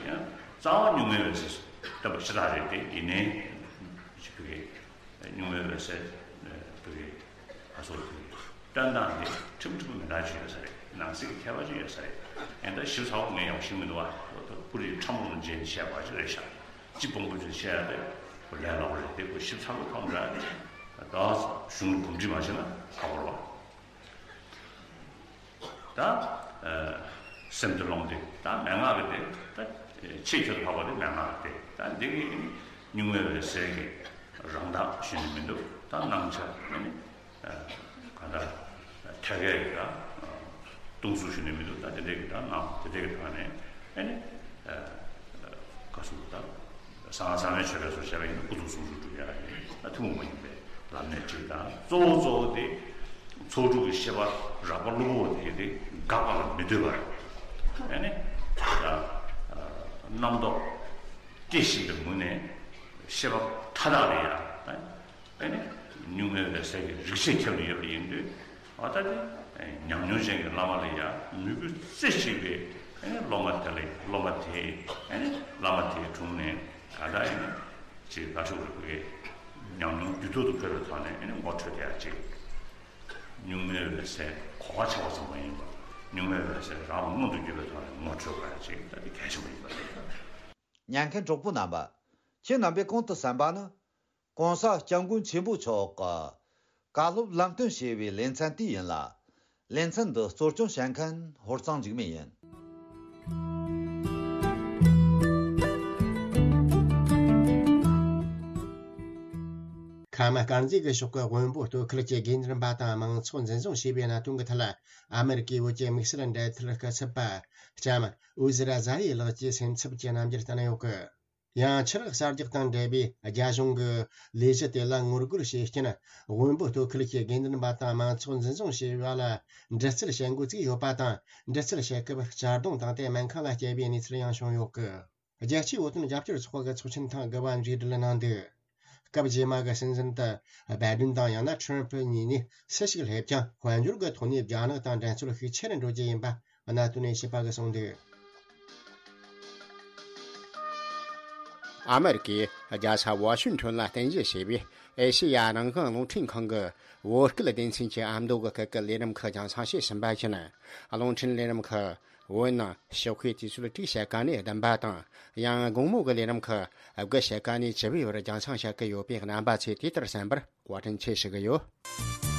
ཡང་རྩ་བ་གཉུག་མའི་འོད་གསལ་བསྟན་པ་ཤ་སྟག་རེད་དེ། ཡིན་ནའི་ཅིག་བོད་ཀྱི་གཉུག་མའི་འོད་གསལ་བོད་ཀྱི་ཨ་སོགས་བོད་ཀྱི་བསྟན་སྟངས་འདི་ཁྲིམས་ཁྲིམས་མི་འདྲ་ཅིག་ཡོད་ས་རེད། ནང་གསེས་ཀྱི་ཁྱད་པར་ཅིག་ཡོད་ས་རེད། ཡིན་ད་ཞིབ་ཚགས་པོ་ངས་ཡང་ཤེས་མི་འདུག་བ། ཁོ་ད་ཕུ་རི་ཁྲ་མོ་རུ་འཇལ་ནས་བཤད་པ་ཅིག་རེད་ཤག་སྤྱི་སྤོང་པོ་ཅིག་བཤད་ཡ་དེ་ཁོ་ལས་སླ་པོ་རེད་དེ། ཁོ་ཞིབ་ཚགས་པོ་ཐོག་འདྲ་ནི་ད་གཞུང་ལ་གོམས་འདྲིས་མ་བྱས་ན་ཧ་གོ་རེད་བ། ད། སེམས་སྡེ་རླུང་སྡེ་ད་མན་ངག་གི་སྡེ་ད་ཆེས་ཆེར་འཕགས་པ་དེ་མན་ངག་གི་སྡེ། ད་འདི་གི་གཉུག་མའི་འོད་གསལ་གྱི་རང་མདངས་ཞུ་ནི་མི་འདུག་ད་སྣང་ཆ་ནི་ག་ད་ཐད་ཀའི་ད་སྟོང་གཟུགས་ཞུ་ནི་མི་འདུག་ད་དེ་འདྲའི་གི་ད་སྣང་དེ་འདྲའི་གི་ཐོག་ནས་ཨ་ནི་ག་སོང་ད། གསང་སྔགས་གསང་བའི་ཆོས་སྐད་སོགས་བཤད་པ་ཡིན་ན་སྐུ་གཟུགས་ཟུང་འཇུག་སྒྲུབ་ཡ་ཡིན་ན་ཐུན་མོང་མ་ཡིན་པའི་ལམ་སྣེ་གཅིག་དང་། གཙོ་བོ་གཙོ་བོ་དེ་ཚོགས་དྲུག་གི་ཤེས་པ་རགས་པ་གློ་བུར་བ་དེ་དེ་འགག་པ་ལ་མི་ལྟོས་པར། ཨ་ནི་ད་རྣམ་རྟོག་སྐྱེ་བཞིན་པའི་ངོས་ནས་ཤེས་པ་མཐའ་དག་ལ་ཡ། ཨ་ནི་གཉུག་མའི་འོད་གསལ་གྱི་རིག་བྱེད་ཁྱབ་ནས་ཡོད་པ་ཡིན་དུས། ཨ་ད་དེ་ཉམས་མྱོང་ཅན་གྱི་བླ་མ་ལ་ཡང་མོས་གུས་རྩེ་གཅིག་པའི་ཨ་ནི་སློབ་མ་དེ་ལ། སློབ་མ་དེ་ཨ་ནི་བླ་མ་དེའི་དྲུང་ནས་ག་ད་ཡིན་ཅེས་དགའ་ཕྱོགས་རིག་པའི་ཉམས་མྱོང་རྒྱུད་ཐོག་ཏུ་ཕེབས་པའི་ཐོག་ནས་ཨ་ནི་ངོ་འཕྲོད་ཡག་ཅིག་གཉུག་མའི་འོད་གསལ་གོ་བ་ཆགས་པ་ཙམ་མ་ཡིན་པར་གཉུག་མའི་འོད་གསལ་རང་ལ་མངོན་དུ་གྱུར་པའི་ཐོག་ནས་ངོ་འཕྲོད་དགོས་ཡག་ཅིག་ད་དེ་གལ་ཆེན་པོ་ཡིན་པ་རེད། ཉན་མཁན་གྲོགས་པོ་རྣམ་པ། ཁྱེད་རྣམ་པས་གོང་དུ་གསན་པ་ནི། ༸གོང་ས་༸སྐྱབས་མགོན་ཆེན་པོ་མཆོག་གི་བཀའ་སློབ་ལམ་སྟོན་ཞེས་པའི་ལེ་ཚན་དེ་ཡིན་ལ། ལེ་ཚན་འདི་གཙོ་སྐྱོང་བྱེད་མཁན་ཧོར་གཙང་འཇིགས་མེད་ཡིན། ཁམས་དཀར་མཛེས་ཀྱི་ཕྱོགས་ཀྱི་དབོན་པོ་སྟོད་ཁུལ་གྱི་དགེ་འདུན་པ་དང་མང་ཚོགས་འཛིན་བཟུང་བྱས་པའི་གནད་དོན་གྱི་ཐད། ཨ་མེ་རི་ཀའི་བོད་ཀྱི་དམིགས་བསལ་འབྲེལ་མཐུད་སྐུ་ཚབ་པ་ལྕམ་ཨུ་ཟི་ར་ཛ་ཡི་ལགས་ཀྱིས་སེམས་འཚབ་ཀྱི་རྣམ་འགྱུར་བསྟན་ཡོད་སྐད། ཡང་ཆུ་རགས་གསར་རྒྱག་དང་འབྲེལ་བའི་རྒྱ་གཞུང་གི་ལས་གཞི་དེ་ལ་ངོ་རྒོལ་བྱེད་རྐྱེན། དབོན་པོ་སྟོད་ཁུལ་གྱི་དགེ་འདུན་པ་དང་མང་ཚོགས་འཛིན་བཟུང་བྱས་པ་ལ་འདྲི་རྩད་བྱེད་འགོ་བཙུགས་ཡོད་པ་དང་། འདྲི་རྩད་བྱེད་སྐབས་གཅར་རྡུང་དང་དེ་སྨན་ཁང་ལ་བསྐྱལ་བའི་གནས་ཚུལ་ཡང་བྱུང་ཡོད་སྐད། རྒྱལ་སྤྱིའི་བོད་དོན་རྒྱབ་སྐྱོར་ཚོགས་པ་གི་ཚོགས་ཆེན་ཐེངས་དགུ་པ་མཇུག་སྒྲིལ་གནང་འདུག་སྐབས་རྗེས་མ་གི་སྲིད་འཛིན་དུ་བྷའི་ཌེན་དང་ཡང་ན་ཁྲམ་ཕུ་གཉིས་ནས་སུ་ཞིག་སླེབས་ཀྱང་དཔལ་འབྱོར་གྱི་ཐོག་ནས་རྒྱ་ནག་དང་འགྲན་རྩོད་ཤུགས་ཆེ་རུ་འགྲོ་རྒྱུ་ཡིན་པ་གནད་དོན་ནས་ཞིབ་པ་གིས་གསུངས་འདུག་ཨ་མེ་རི་ཀའི་རྒྱལ་ས་ཝ་ཤིང་ཊོན་ལ་རྟེན་གཞི་བྱས་པའི་ཨེ་ཤེ་ཡ་རང་དབང་རླུང་འཕྲིན་ཁང་གི་བོད་སྐད་སྡེ་ཚན་གྱི་ཨ་མདོ་གི་སྐད་ཀྱི་ལས་རིམ་ཁག་རྒྱང་སྲིང་བྱེད་བཞིན་པ་ཡིན། རླུང་འཕྲིན་ལས་རིམ་ཁག་ བོད་ནང་ཞོགས་ཀའི་དུས་ཚོད་དྲུག་ཕྱེད་ཀ་ནས་བདུན་པ་དང་། ཡང་དགོང་མོ་གི་ལས་རིམ་ཁག་དགུ་ཕྱེད་ཀ་ནས་བཅུ་པའི་བར་རྒྱང་སྲིང་བྱེད་ཀྱི་ཡོད་པའི་རྣམ་པ་ཚོས་དེ་ལྟར་གསན་པར་བཀའ་དྲིན་ཆེ་ཞུ་གི་ཡོད།